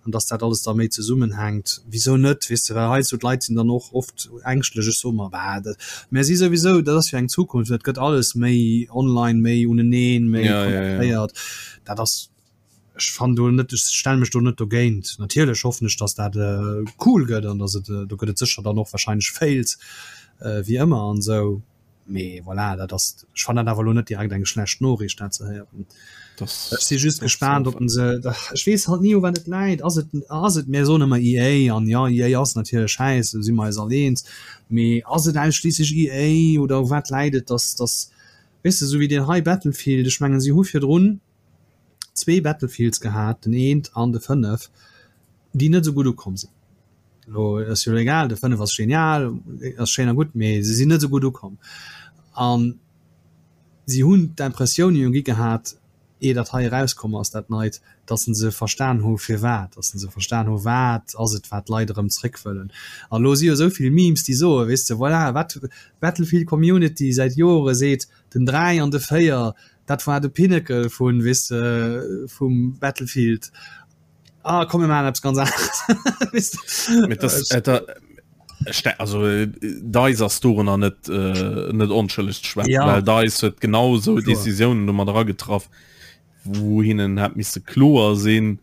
an dass dat alles da méi zesummenhänkt. Wisou net, weess de, well heiansdo d'Leit sinn dann och oft ängschtlech, ech soe mer, bah, dat, mä si souwisou, dat ass jo eng Zukunft, et gëtt alles méi online, méi uneneen, méi
Ja, ja, ja.
connectéiert, dat ass, ech fannen do net, ech stelle mech do net dogéint. Natierlech hoffen ech, dass dat cool gëtt an dass et, do gëtt et sécher dann och wahrscheinlech Fails wéi ëmmer an esou, mee voilà, dat ass, ech fannen dat awer elo net direkt eng schlecht Noriicht dat ze héieren. Ech si just gespaant, ob se, ech weess halt ni u wat et läit, ass et, ass et, mir soen ëmmer EA an jo EA ass natierlech schäiss, do si mer eis all eens, mee ass et ausschliisslech EA oder u wat läit et, dass, dass, weess de, esou wéi deen hei Battlefield, ech mengen si hu virdrun, zwee Battlefields gehat, den eent an de 5, déi net esou gutt ukomm sinn. Lo ass jo egal, de 5 ass genial, ass schéin a gutt, mee se sinn net esou gutt ukomm. An si hunn d'Impressioun jo gi gehat, ier dat hei erauskomm ass, dat Neit, datt se verstan hu firwat, datt se verstan hu wat ass et, wat d'Leit erëm zréck wëllen. An elo si jo esou vill Memes, déi soen, weess de, voilà, wat d'Battlefield Community säit Jore seet, den 3 an de 4, Dat war de Pinnacle vun, weess de, vum Battlefield. Ah, komm mir maachen eppes ganz aneres.
Weess de? Mee das, äh, da, ste also äh, DICE ass dorunner net äh, net onschëlleg ze schwätzen,
Ja.
well DICE huet genau sou
Kloer.
Decisiounen do mat eragetraff, wou hinnen hätt misse kloer sinn,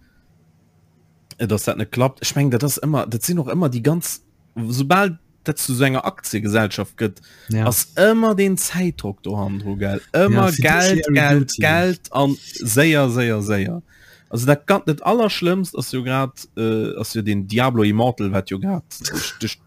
äh, dass dat net klappt. Ech mengen, dat ass ëmmer, dat sinn och ëmmer déi ganz, soubal dat zu so enger Aktiengesellschaft gëtt
ja.
ass ëmmer den Zäitdruck do handro gell ëmmer
ja,
Geld Geld Geld an séier séier séier also dat ganz net allerschlimmst ass jo grad äh, ass jo den Diablo Immortal wat jo grad duerch, duerch,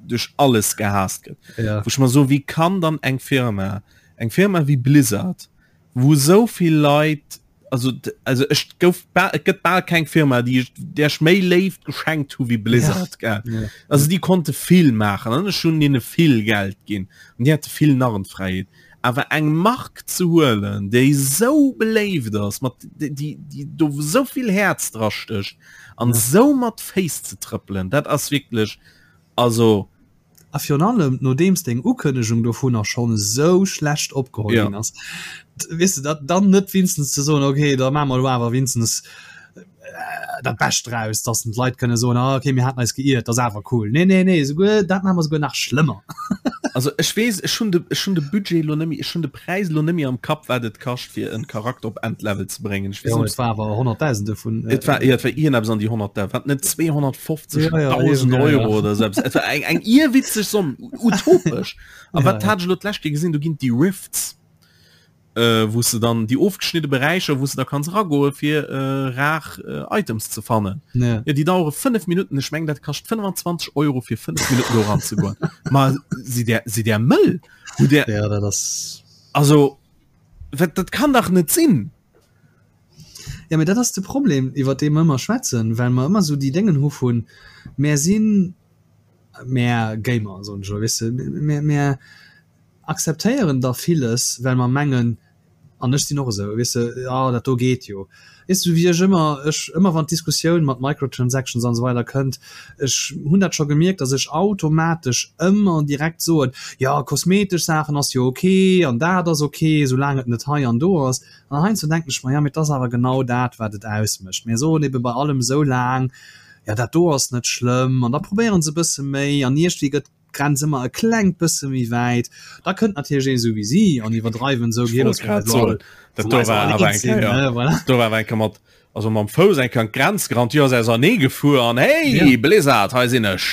duerch alles gehasst gëtt
ja.
wou ich mal so wie kann dann eng Firma eng Firma wie Blizzard wou esou vill Leit also also ech gouf et gëtt bal keng Firma déi ech där ech méi Léift geschenkt hu wéi Blizzard
ja.
gell
ja.
also déi konnte vill maachen an ech hunn hinne vill Geld ginn an déi hate vill Narrenfräiheet. Awer eng Mark ze huelen, déi esou beléift ass, mat déi déi do esou vill Häerz dra stécht an esou mat Féiss ze trëppelen, dat ass wierklech, also.
A virun allem nodeems deng Ukënnegung dovunner schonn esou schlecht opgeholl ginn ass, weess de, dat dann net winstens ze soen, okay, da maache mer elo awer winstens dat Bescht draus, dass d'Leit kënne soen, ah okay, mir haten eis geiert, dat ass awer cool. Nee, nee, nee, souguer dat maache mer souguer nach schlëmmer.
Also ech weess, ech hunn de, ech hunn de Budget elo net méi, ech hunn de Präis elo net méi am Kapp, wat et kascht, fir en Charakter op Endlevel ze bréngen. Ech weess
net, Et war awer Honnertdausende vun.
Et war, jo, et war iergendeppes an déi Honnertdau-, wat net 250.000 ja, ja, Euro oder esou eppes. Et war eng, eng irrwitzeg Somm, utopesch. A wat hat ech elo d'lescht Kéier gesinn, do ginn et déi Rifts. äh, wou se dann déi ofgeschnidde Beräicher, wou se da kanns ragoe fir äh, rar äh, Items ze fannen.
Ja.
Ja, déi dauere 5 Minuten, ech meng dat kascht 25 Euro fir 5 Minuten do ranzegoen. Ma si der si der mëll? Hu der
Ja, dat ass
also wat, dat kann dach net sinn.
Ja, mee dat ass de Problem, iwwer dee mer ëmmer schwätzen, well mer ëmmer esou déi Déngen hu vun, mär sinn, mär Gamer, soen ech elo, weess de, mär, mär akzeptéieren da villes, well mer mengen, an ech sinn och esou, weess de, jo dat do geet jo, weess de, wéi ech ëmmer, ech ëmmer wann d'Diskussioun mat Microtransactions an esou weider kënnt, ech hunn dat scho gemierkt, datt ech automatesch ëmmer direkt soen, jo kosmetesch Saachen ass jo ok an dat ass ok, soulaang et net hei an do ass. An heiansdo denken ech mer, jo mee et ass awer genau dat wat et ausmécht. Mir soen ebe bei allem esou laang, jo dat do ass net schlëmm an da probéiere se e bësse méi an iergendwéi gëtt d'Grenz ëmmer e klengt bësse méi wäit. Da kënnt natierlech een esou wéi si an iwwerdreiwen esou,
Ech wollt grad soen, dat do war awer eng Kéier, do war awer eng Kéier mat, also mam Fouss eng Kéier an d'Grenz gerannt, jo ass ausernee gefuer an hey, Blizzard, hei sinn ech.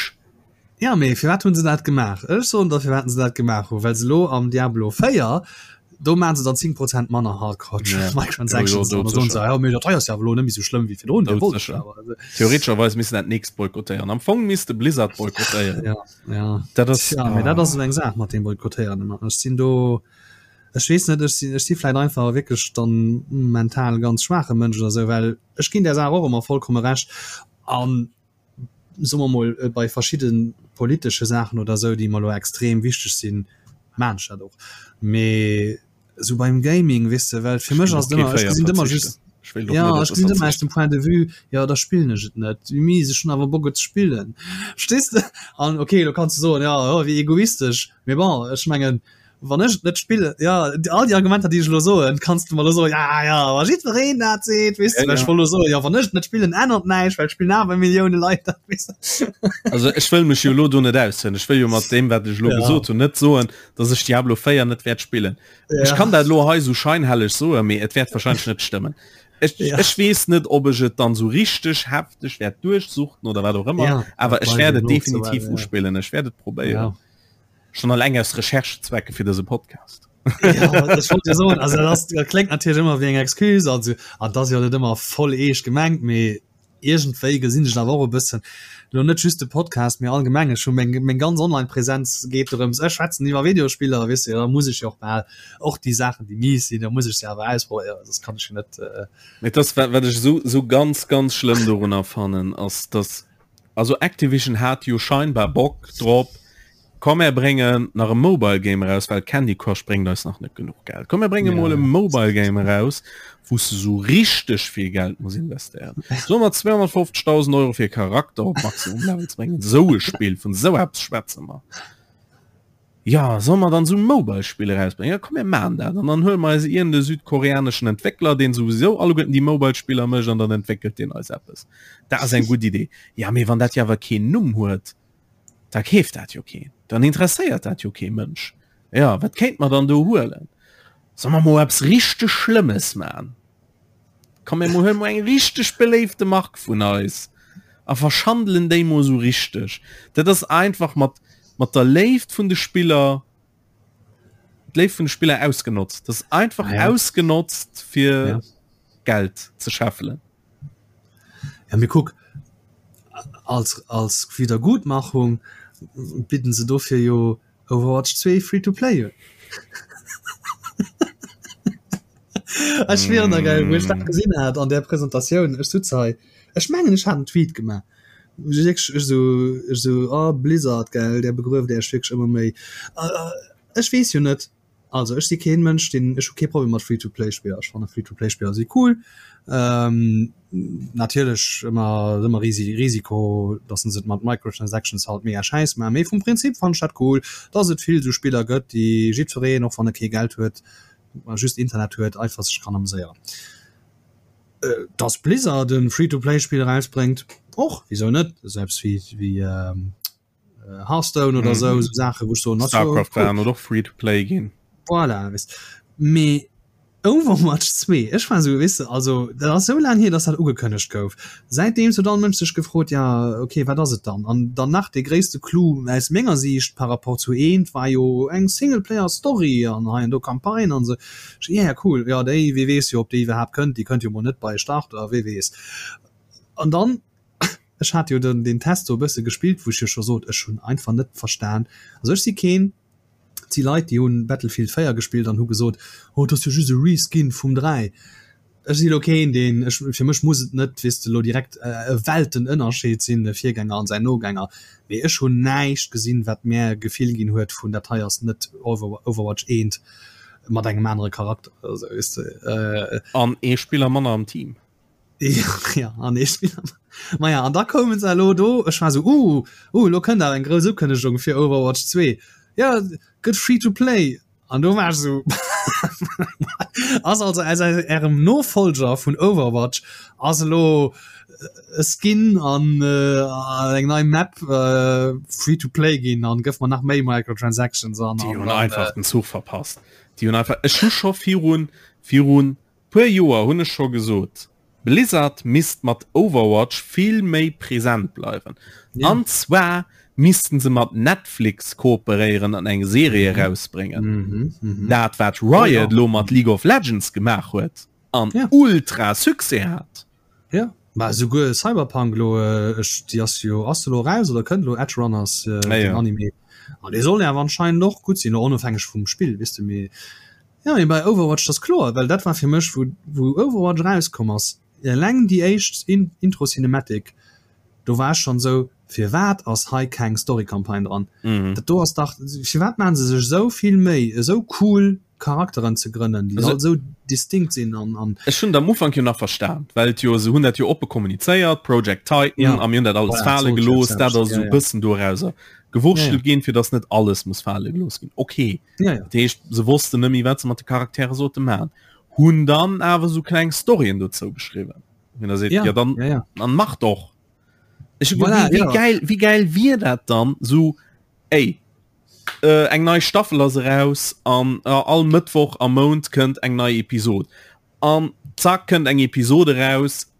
Ja, mee firwat hunn se dat gemaach? Ech soen der firwat se dat gemaach hunn, well se elo am Diablo 4, do maachen se dann 10 Prozent manner Hardcore Microtransactions an da soen se, jo mee dat hei ass jo awer elo net méi esou schlëmm wéi virdrun,
dir wollt et jo awer. Theoretescherweis misst dat nächst boykottéieren. Am Fong misst de Blizzard boykottéieren.
Ja, ja.
Dat ass,
Ja, mee dat ass esou eng Saach mat deem Boykottéieren ëmmer. Ech sinn do, ech weess net, ech sinn, ech si vläit einfach wierklech dann mental ganz schwaache Mënsch oder esou, well ech ginn där Saach och ëmmer vollkomme Recht an soe mer mol, bei verschidde politesche Saachen oder esou, déi mer elo extrem wichteg sinn, maan ech dat och. Mee esou beim Gaming, weess de, well fir mech ass et ëmmer, ech gesinn et ëmmer just, jo, ech gesinn et ëmmer aus dem Point de vue, jo, da spillen ech et net, mee ech hunn awer Bock et ze spillen, verstees de? An okay, elo kanns de soen, jo, oh, wéi egoistesch, mee bon, ech mengen, Wann ech et net spillen, ja, all déi Argumenter, déi ech elo soen, kanns du mer elo soen, ja, ja, wa jiddwereen dat seet, weess de, well ech wollt elo soen, ja, wann ech et net spillen, ännert näischt, well et spillen awer Millioune Leit dat, weess
de. Also ech wëll mech jo elo do net aushënn. Ech wëll jo mat deem, wat ech elo gesot hunn, net soen, datt ech Diablo 4 net wäert spillen. Ech kann dat elo hei esou scheinhelleg soen, mee et wäert wahrscheinlech net stëmmen. Ech, ech weess net, ob ech et dann esou richteg hefteg wäert duerchsuchten oder wat och ëmmer, awer ech wäert et definitiv uspillen, ech wäert et probéieren. Schon alleng aus Recherchezwecke fir dëse Podcast.
Ja, ech wollt jo soen, also dat ass, dat kléngt natierlech ëmmer wéi eng Excuse, also an dat ass jo net ëmmer voll eescht gemengt, mee iergendwéi gesinn ech et awer och e bëssen, elo net just de Podcast, mee allgemeng, ech hu meng, meng ganz Online-Präsenz geet dorëms, ech schwätzen iwwer Videospiller, weess de, da muss ech jo och bal och déi Saachen, déi mies sinn, da muss ech se awer ausprobéieren, soss kann ech jo net.
Mee et ass, wat, wat ech esou, esou ganz, ganz schlëmm dorunner fannen, ass, dass Also Activision hat jo scheinbar Bock drop, komm mär bréngen nach e Mobile Game eraus, well Candy Crush bréngt eis nach net genuch Geld. Komm mär brénge mol e Mobile Game eraus, wou s de sou richteg vill Geld muss investéieren. Soe mer 250.000 Euro fir e Charakter op Maximum Level ze bréngen. Sou e Spill, vun sou eppes schwätze mer. Jo, solle mer dann esou Mobile-Spill erausbréngen? Jo, komm mir maachen dat. An dann huele mer eis iergend e südkoreaneschen Entwéckler, deen souwisou alleguerten déi Mobile-Spiller mécht, an dann entwéckelt deen eis eppes. Dat ass eng gutt Idee. Ja, mee wann dat jo awer keen Numm huet, da keeft dat jo keen. Dann interesséiert dat jo kee Mënsch. Jo, wat kéinte mer dann do huelen? Solle mer mol eppes richteg Schlëmmes maachen? Komm mir huelen mol eng richteg beléifte Mark vun eis a verschandelen déi mol sou richteg. Dat ass einfach mat mat der Léift vun de Spiller d'Léift vun de Spiller ausgenotzt. Dat ass einfach ah, ja. ausgenotzt fir ja. Geld ze scheffelen.
Ja, mir kuck als als Wiedergutmachung bidden se dofir jo Overwatch 2 free to play un. Ech schwieren der geil, wou ech dat gesinn hat an der Presentatioun, ech sutz hei, ech mengen ech hat en Tweet gemaach, ech wierklech ech sou ech sou oh Blizzard gell, där begrueft Iech wierklech ëmmer méi. Ech weess jo net. Also ech si keen Mënsch deen, ech hu kee Problem mat Free-to-Play-Spiller. Ech fanne Free-to-Play-Spiller si cool. Ähm, natierlech ëmmer ëmmer Risi Risiko, datt se et mat Microtransactions halt mega schäiss maachen, mee vum Prinzip fannen ech dat cool, datt et vill esou Spiller gëtt, déi jiddwereen, och wann e kee Geld huet, just Internet huet, einfach sech kann ameséieren. Äh, datt Blizzard e Free-to-Play-Spill erausbréngt, och, wisou net, esou eppes wéi wéi ähm, äh, Hearthstone oder mm -hmm. so, so Sache wo so
Starcraft cool. oder free to play ginn
voilà, weißt. Me Overwatch 2 ech war so wisse also dat ass so lang hier dass dat ugekënnegt gouf seitdem so dann Mënsch sech gefrot ja okay wat ass et dann an dann nach de gréisste Clou aus menger Siicht par rapport zu eent war jo eng Singleplayer Story an hei an do Campagne an se ja yeah, cool ja déi wie weess jo op déi iwwerhaapt kënnt déi kënnt jo mol net bei Start oder wee weess an dann Ech hat jo den deen Test do e bësse gespillt, wou ech jo scho sot, ech hunn einfach net verstan. Also ech si keen, et si Leit, déi hunn Battlefield 4 gespillt an hu gesot, oh et ass jo just e Reskin vum 3. Ech si lo keen, deen, ech, fir mech muss et net, weess de, lo direkt e Weltenënnerscheed sinn, e Virgänger an säin Nogänger, mee ech hunn näischt gesinn, wat mär e Gefill ginn huet vun dat hei ass net Overwatch 1 mat engem anere Charakter oder sou, weess
de. An ee Spiller manner am Team.
Ja, an ee Spiller. Maja, an da koumen se elo do, ech war sou, uh, uh, elo kënnt awer eng grouss Ukënnegung fir Overwatch 2. Ja, gëtt free to play. An do war ech sou, ass also aus ärem Nofolger vun Overwatch ass elo e Skin an äh, eng nei Map äh, free to play ginn an gëff mer nach méi Microtransactions
an. Déi hunn einfach den Zuch verpasst. Déi hunn einfach, ech hu scho virun, virun Puer Joer hunn ech scho gesot, Blizzard misst mat Overwatch vill méi present bleiwen. Ja. An zwar missten se mat Netflix kooperéieren an eng Serie mhm. erausbréngen. Mhm, mhm. Dat wat Riot oh, ja. lo mat League of Legends gemaach huet an ja. ultra Succès hat.
Ja. Ma souguer Cyberpunk lo äh, ech, déi ass jo ass lo raus oder kënnt lo Edge Runners äh, ja, ja. Anime. An dee soll ja anscheinend och gutt sinn, onofhängeg vum Spill, wisst du mir. Jo, mee bei Overwatch dat ass kloer, well dat war fir mech wou wou Overwatch erauskomm ass, eleng déi éischt Intro Cinematic, do war ech schonn esou, firwat ass hei keng Story Campagne dran? Dat do ass dach, firwat maachen se sech esou vill Méi esou cool Charakteren ze grënnen, déi all esou distinct sinn an an.
Ech hunn et am Ufank jo nach verstan, well et jo, se hunn dat jo oppe kommunizéiert, Project Titan, a mir hunn dat alles fale gelooss, dat ass esou e bëssen dorauser gewurschtelt ginn, fir datt net alles muss fale gelooss ginn. Okay. Ja, ja. Dat heescht, se wossten net méi, wat se mat de Charaktere sollte maachen. Hunn dann awer sou kleng Storyen dozou geschriwwen. Wenn der seet, ja, ja dann, ja, ja. dann mach doch. Ech, voilà, wie, wie, ja. geil, wie geil wier dat dann so ey, äh, eng nei Staffel ass eraus an äh, all Mëttwoch am Mount kënnt eng nei Episod. An zack kënnt eng Episode raus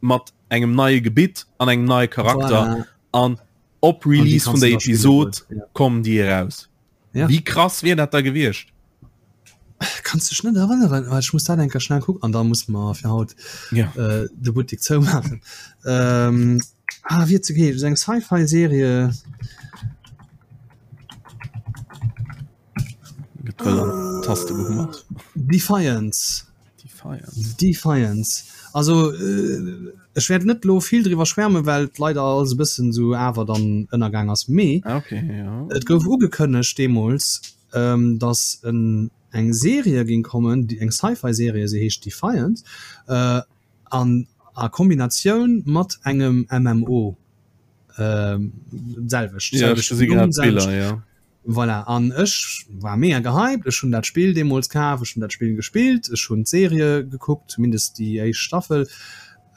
mat engem neie Gebitt an engem neie Charakter an voilà. op Release vun der Episod ja. kommen déi eraus. Ja. Wie krass wier dat da gewiescht?
Kannst dech net erënneren, well ech muss dat enker schnell kucken an da muss mer fir haut
ja.
äh, de Buttek zoumaachen. Ähm, ah, wie ze geet eng Sci-Fi-Serie.
Taste gehummert.
Defiance. Defiance. Defiance. Also äh, ech wäert net lo vill driwwer schwärmen, well et leider alles e bëssen sou awer dann ënnergaang ass. Mee
ah, okay, ja.
et gouf ugekënnegt deemools, ähm, dass en, eng Serie ging kommen, déi eng Sci-Fi-Serie, se heescht Defiance, äh, an a Kombinatioun mat engem MMO. Ähm, selwecht.
Ja, ech gesi grad d'Biller, ja.
Voilà, an ech war mega gehypt, ech hunn dat Spill deemools kaf, ech hunn dat Spill gespillt, ech hunn d'Serie gekuckt, zumindest déi éischt Staffel,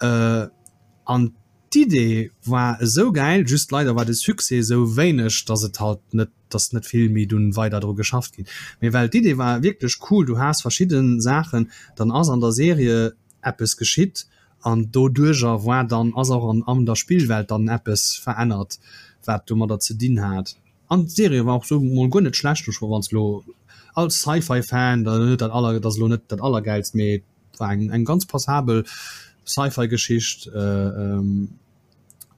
an d'Idee war esou gäil, just leider war de Succès esou wéineg, dass et halt net, dass net vill méi dunn weider dru geschafft ginn. Mee well d'Idee war wierklech cool, du has verschidde Saachen, dann ass an der Serie eppes geschitt an doduerjer war dann, ass och an an der Spillwelt dann eppes verännert, wat domadder ze dinn hat. An d'Serie war och sou mol guer net schlecht. Ech wanns lo als Sci-Fi Fan da net dat aller dat ass lo net dat allergäilst, mee et war eng eng ganz passabel Sci-Fi Geschicht.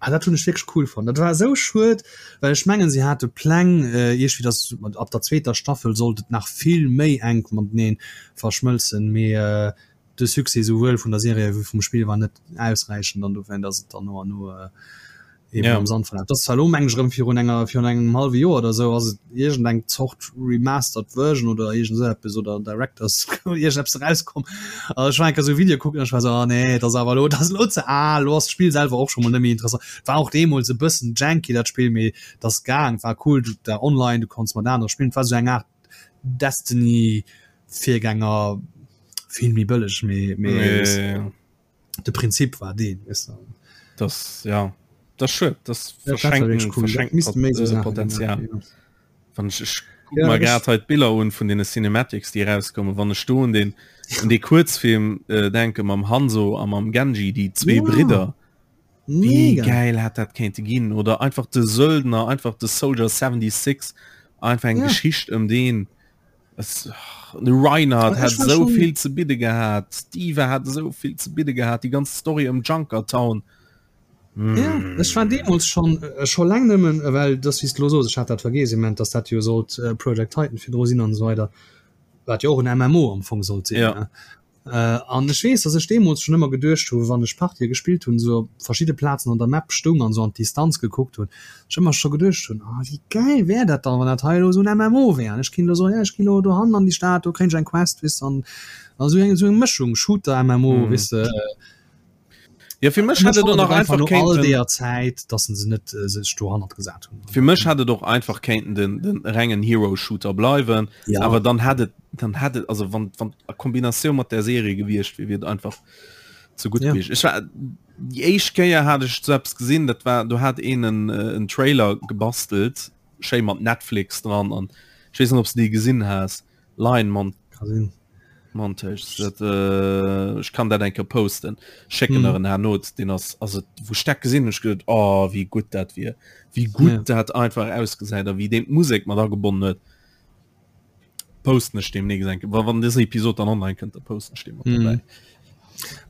Ah dat hunn ech wierklech cool fonnt. Dat war esou schued, well ech mengen se hate Pläng iergwéi datt ab der zweeter Staffel sollt et nach vill méi enk matenee verschmëlzen, mee de Succès souwuel vun der Serie wéi vum Spill war net ausräichend an dowéint ass et dann no an no. Eben ja. am Sand verlaf. Das war lo meng ech erëm virun enger virun engem halwe Joer oder sou ass et iergend eng Zort remastered Version oder iergend sou eppes oder Directors iergend eppes erauskomm. Also ech war eng Kéier sou e Video kucken an ech war sou, ah nee, dat ass awer elo dat ass elo ze al, elo ass d'Spill selwer och scho mol net méi interessant. War och deemools e bëssen janky dat Spill, mee et ass gaang, war cool, du war online, du konns mat anere spillen, et war sou eng Aart Destiny Virgänger, vill méi bëlleg, mee mee. Ja, ja, ja. De Prinzip war deen, weess de.
Das, ja, das schued, das ja, verschenken, cool. verschenken Pot äh, Potenzial. Ja. Wann ich, ich guck ja, mal grad halt Biller un vun den Cinematics, die rauskommen, wann ich do un den un de Kurzfilm äh, denke mam Hanzo a mam Genji, die zwee ja. Bridder. Wie geil hat dat kéinte ginn oder einfach de Söldner, einfach de Soldier 76, einfach eng ja. Geschicht ëm den. Es, de Reinhardt hat esou vill ze bidde gehat, d'Diva hat esou vill ze bidde gehat, déi ganz Story ëm Junkertown.
Mm. Ja, ech war deemools schon äh, scho laang nëmmen, äh, well das wéi s de lo sos, ech hat dat vergeess immens, dass dat jo sollt äh, Project Titan virdru sinn an esou weider, wat jo och en MMO am Fong sollt sinn. Ja. Ne? An ech weess, dass ech deemools schonn ëmmer geduecht hu wann ech Partië gespillt hunn, esou op verschidde Plazen an der Map stoung an esou an d'Distanz gekuckt hunn, ech ëmmer scho geduecht hunn, ah wéi gäil wär dat dann, wann dat hei elo esou en MMO wär an ech kéint elo soen, ja ech ginn elo dohannen an déi Stad, do kréien ech eng Quest, weess de, an esou eng esou eng Mëschung Shooter-MMO, weess de.
Ja fir mech hätt et och nach einfach
no all deeër Zäit, dass se net äh, sech dohannert gesat
hunn. Fir mech hätt et och einfach kéinten den, den rengen Hero Shooter bleiwen, ja. awer dann hätt et dann hätt et also wann wann a Kombinatioun mat der Serie gewiescht wier, wier et einfach zu gutt ja. gewiescht. Ech war déi éischt Kéier hat ech sou eppes gesinn, dat war do hat een en, äh, en Trailer gebastelt, schéi mat Netflix dran an ech weess net ob s de dee gesinn has. Line Mon Montage dat äh, ech kann dat enke posten schécken mm. en Not den ass also wo steck gesinn ech gehört oh wie gut dat wier wie gut ja. dat einfach ausgesäit a wie den Musik mat agebonnen huet posten ech demnächst enke wa wann dës Episode dann online kënnt da posten ech dem
mm. dabei.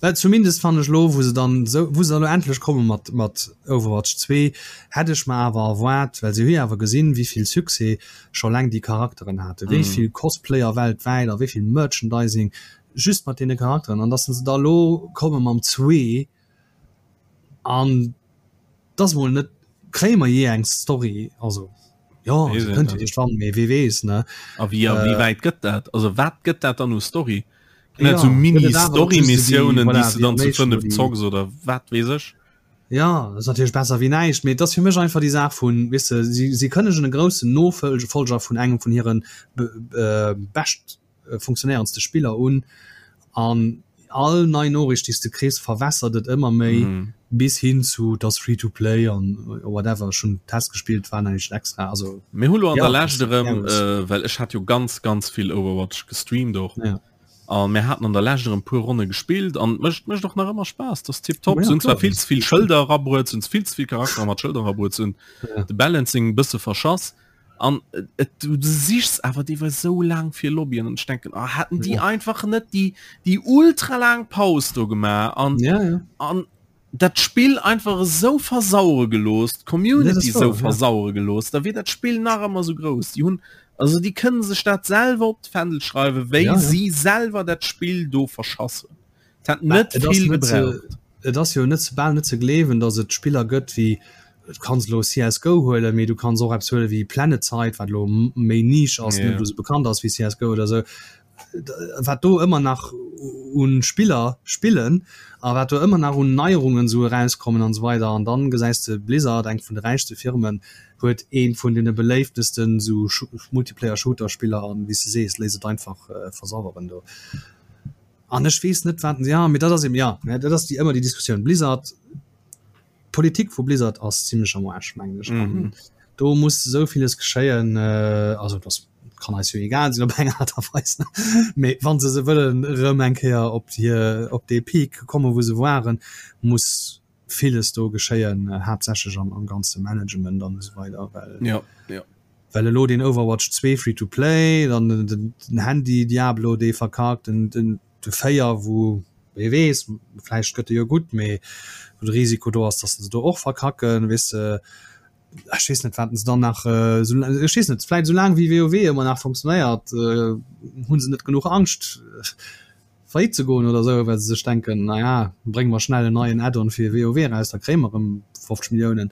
Well zumindest fand ech lo wou se dann so wou se lo endlech komme mat mat Overwatch 2 hätt ech mer awer erwaart well se hu jo awer gesinn wéivill Succès scho laang déi Charakteren hate wéi mm. vill Cosplayer weltwäit a wéi vill Merchandising just mat deene Charakteren an dass se da lo komme mam 2 an dass mol net kréie mer jee eng Story also jo se kënnt jo iergendwann mee wee weess ne.
A wéi a wéi wäit gëtt dat? Also wat gëtt dat dann u Story? Ginn dat sou Mini-Story-Missiounen, déi s de dann zu 5 zocks oder wat weess ech?
Ja, dat ass natierlech besser wéi näischt, mee et ass fir mech einfach déi Saach vun, weess de, si si kënnegen e groussen Nofolger vun engem vun hire bescht funktionéierendste Spiller un an all nei Noriicht déi s de kriss verwässert et ëmmer méi bis hin zu et ass free to play an whatever. Ech hunn Test gespillt, war näischt extra, also
Mir hu lo an der Lescht erëm, well ech hat jo ganz ganz vill Overwatch gestreamt och an mir haten an der Lescht erëm puer Ronne gespillt an et mécht mécht och nach ëmmer Spaass, dat ass tiptop. Se hunn zwar vill ze vill Schëlder erabruet, se hunn vill ze vill Charaktere mat Schëlder erabruet, se hunn de Balancing e bësse verschass. An et du sichs awer deelweis sou laang fir Lobbyen an ech denken oh, hätten déi ja. einfach net déi déi ultra laang Paus do gemaach an
ja, ja.
an dat Spill einfach esou versauere gelooss, d'Community ja, esou versauere ja. gelooss, da wier dat Spill nach ëmmer sou grouss. Déi hunn also déi kënnen sech dat selwer op d'Fändel schreiwen, wéi ja, ja. si selwer dat Spill do verschass hunn. Et hat net vill gebraucht.
Et ass jo net bal net ze gleewen, datt et Spiller gëtt wéi, du kanns elo CSGO huelen, mee du kanns och eppes huele wéi PlanetSide, wat elo méi Niche ass, net esou bekannt ass wéi CSGO oder esou, wat do ëmmer nach u Spiller spillen a wat do ëmmer nach un Neierungen esou erauskommen an esou weider. An dann gesäis de Blizzard, eng vun de räichste Firmen, huet eent vun deene beléiftesten esou Multiplayer-Shooter-Spiller an, wéi s de sees, léisst et einfach versaueren do. An ech weess net wat, ja, mee dat ass eben, ja, mä dat ass déi ëmmer déi Diskussioun. Blizzard, d'Politik vu Blizzard ass zimlech am Aarsch, mengen ech. An mhm. do muss esou villes geschéien, äh, also das kann eis jo egal sinn op eng Art a Weis, mee wann se se wëllen erëm eng Kéier op hir op dee Peak komme wou se waren, muss villes do geschéien, haaptsächlech am, am ganze Management an esou weider, well
ja, ja.
well elo den Overwatch 2 free to play, dann den, den, den Handy Diablo dee verkackt, den, den, de 4 wou wee weess, vläicht gëtt e jo gutt, mee wou de Risiko do ass, dass se do och verkacken, weess de, ech weess net wat se dann nach äh, so, ech weess net, vläicht esou laang wéi WoW ëmmer nach funktionéiert, äh, hunn se net genuch Angscht. Faillite ze goen oder esou, well se sech denken, naja, brénge mer schnell en neien Add-on fir WoW eraus, da kréie mer erëm 50 Milliounen.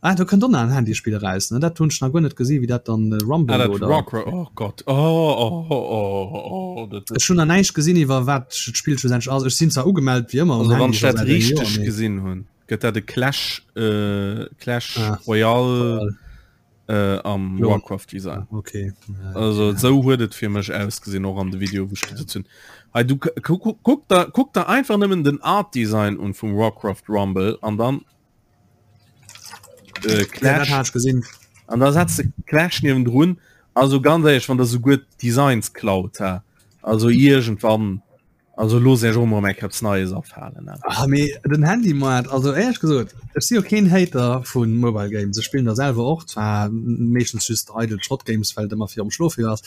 Ah, do kënnt och nach en Handyspill eraus, ne? Dat hunn ech nach guer net gesi wéi dat dann Rumble ah, dat oder
Warcraft, oh Gott, oh, oh, oh, oh, oh,
dat Ech hunn nach näischt gesinn iwwer wat d'Spill schlussendlech ass. Ech sinn zwar ugemellt wéi ëmmer
um Also wann ech dat richteg gesinn hunn, gëtt dat e Clash, äh, Clash ah, Royale äh, am Klon. Warcraft Design.
Ah, okay.
Ja, also ja. sou huet et fir mech ausgesinn och an de Video wou ech gesinn hunn. Hey, du kuck, kuck, da, kuck da einfach nëmmen den Art Design un vum Warcraft Rumble an dann
äh, Clash. Ja, gesinn.
An da setzt de Clash niewendrun. Also ganz ehrlich, wann der souguer d'Designs klaut, ha. Also irgendwann Also looss Iech och mol eng Kéier eppes Neies afalen.
Ah, mee den Handymaart, also éierlech gesot, ech si jo keen Hater vu Mobile Games, ech spillen der selwer och, zwar meeschtens just eidel Schrott-Games, well et ëmmer virum Schlofe ass,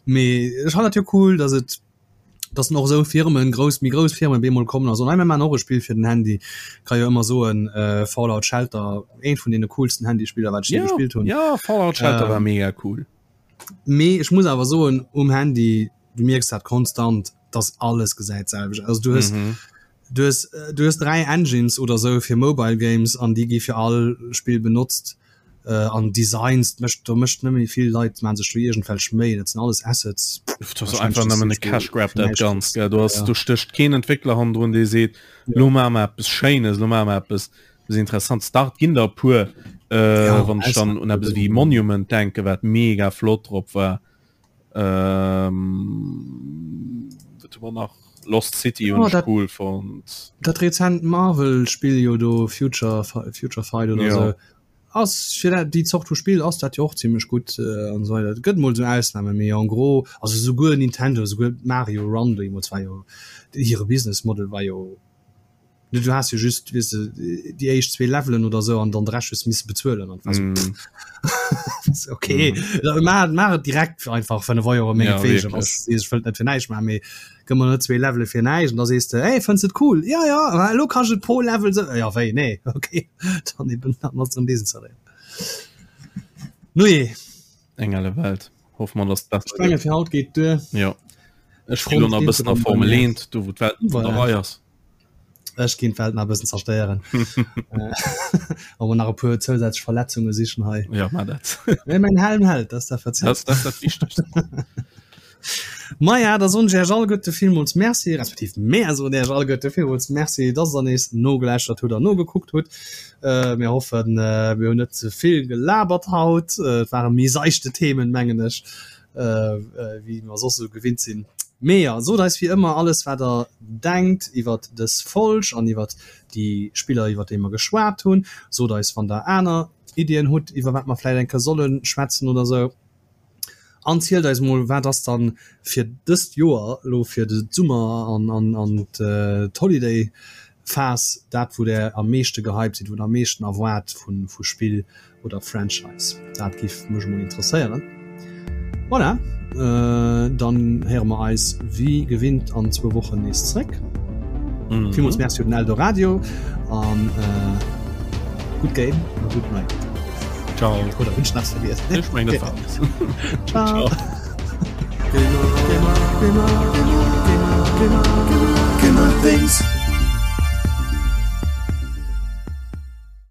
mee ech fannen dat jo cool, datt et, datt och esou Firmen, grouss, méi grouss Firmen bemol kommen a soen, hei mir maachen och e Spill fir den Handy. Ka jo ëmmer soen, Fallout Shelter, eent vun deene coolsten Handyspiller, wat ech jee gespillt hunn.
Jo, Fallout Shelter war mega cool.
Mee ech muss awer soen, um Handy, du mierks dat konstant, dass alles gesäit selwecht aus. Du hues, mhm. du hues, du hues drei Engines oder sou fir Mobile Games an déi gi fir all Spill benotzt. Äh, an Designs mécht do mécht net méi vill Leit man sech do iergendwelch Méi, dat sinn alles Assets.
Das ass einfach nëmmen e Cash Grab dat ganz gell. Du hast ja. du stécht keen Entwickler hannendrun, dee seet ja. lo maache mer eppes Schéines, lo maache mer eppes eppes interessant. Start ginn der puer äh, ja, wann ech dann un eppes wéi Monument denke wat mega flott drop war. Ähm, wat hu mer nach? Lost City hunn
oh,
ech cool fonnt.
Dat rezent Marvel-Spill jo do Future, Future Fight oder ja. so. Ass fir dat, déi Zort vu Spill ass dat jo och zimmlech gutt äh, an so weiter. Et gëtt mol sou Ausnahme, mee en gros, also souguer Nintendo, souguer Mario Run deemools war jo hire Business Model war jo Du has jo just weess de déi éischt zwee Levelen oder sou an dann de Rescht hues misse bezuelen an war so
Mm.
okay mm. maach maach et direkt einfach 5 Euro
Ja,
mengewegen
wierklech.
was ech wëllt net fir näischt maachen mee gëmm mer net zwee Levele fir näischt an da sees de hey fënns et cool ja ja ma elo kanns et pro Level sou ja wéi nee okay dann eben dann ass erëm desinstalléiert Nujee
Eng elle Welt. Hoffe mer, dass et besser
ech menge
gëtt.
fir haut geet duer.
Jo. Ech spille lo nach e bëssen a Formel 1, do wou d'Welt net an der
Voilà.
Rei ass.
Ech ginn d'Welt nach e bëssen zerstéieren. Awer nach e puer zousätzlech Verletzunge sichen hei.
Ja, mar dat.
Mee mäin Helm hält, dat ass dat wat zielt.
Dat ass dat Wichtegst.
Maja, da soen ech Iech alleguerte villmools Merci, respektiv mär soen Iech alleguerte villmools Merci, dass der nees nogeläuschtert hutt an nogekuckt hutt. Mir hoffen, mir hunn net ze vill gelabert haut. Et ware méi seichte Themen, mengen ech. wéi mer soss esou gewinnt sinn. Mee jo, sot eis wéi ëmmer alles wat der denkt iwwert dës Folg an iwwert déi Spiller iwwert déi mer geschwat hunn. Sot eis wann der aner Iddien hutt iwwer wat mer vläit eng Kéier solle schwätzen oder sou. An zielt eis mol wat ass dann fir dëst Joer elo fir de Summer an an an d'Holiday Phas dat wou der am meeschte gehypt sidd, wou der am meeschten erwaart vu vu Spill oder Franchise. Dat giff mech emol interesséieren. Voilà, dann héiere mer eis wéi gewinnt an zwou Wochen nees zréck. Mm. Villmools Merci un den Eldoradio an äh, good game a good night.
Ciao.
Oder hunn ech nach vergiess?
Ech meng dat war alles.
Ciao.
Ciao.
Gamer, Gamer, Gamer, Gamer, Gamer, Gamer, Gamer, Gamer things.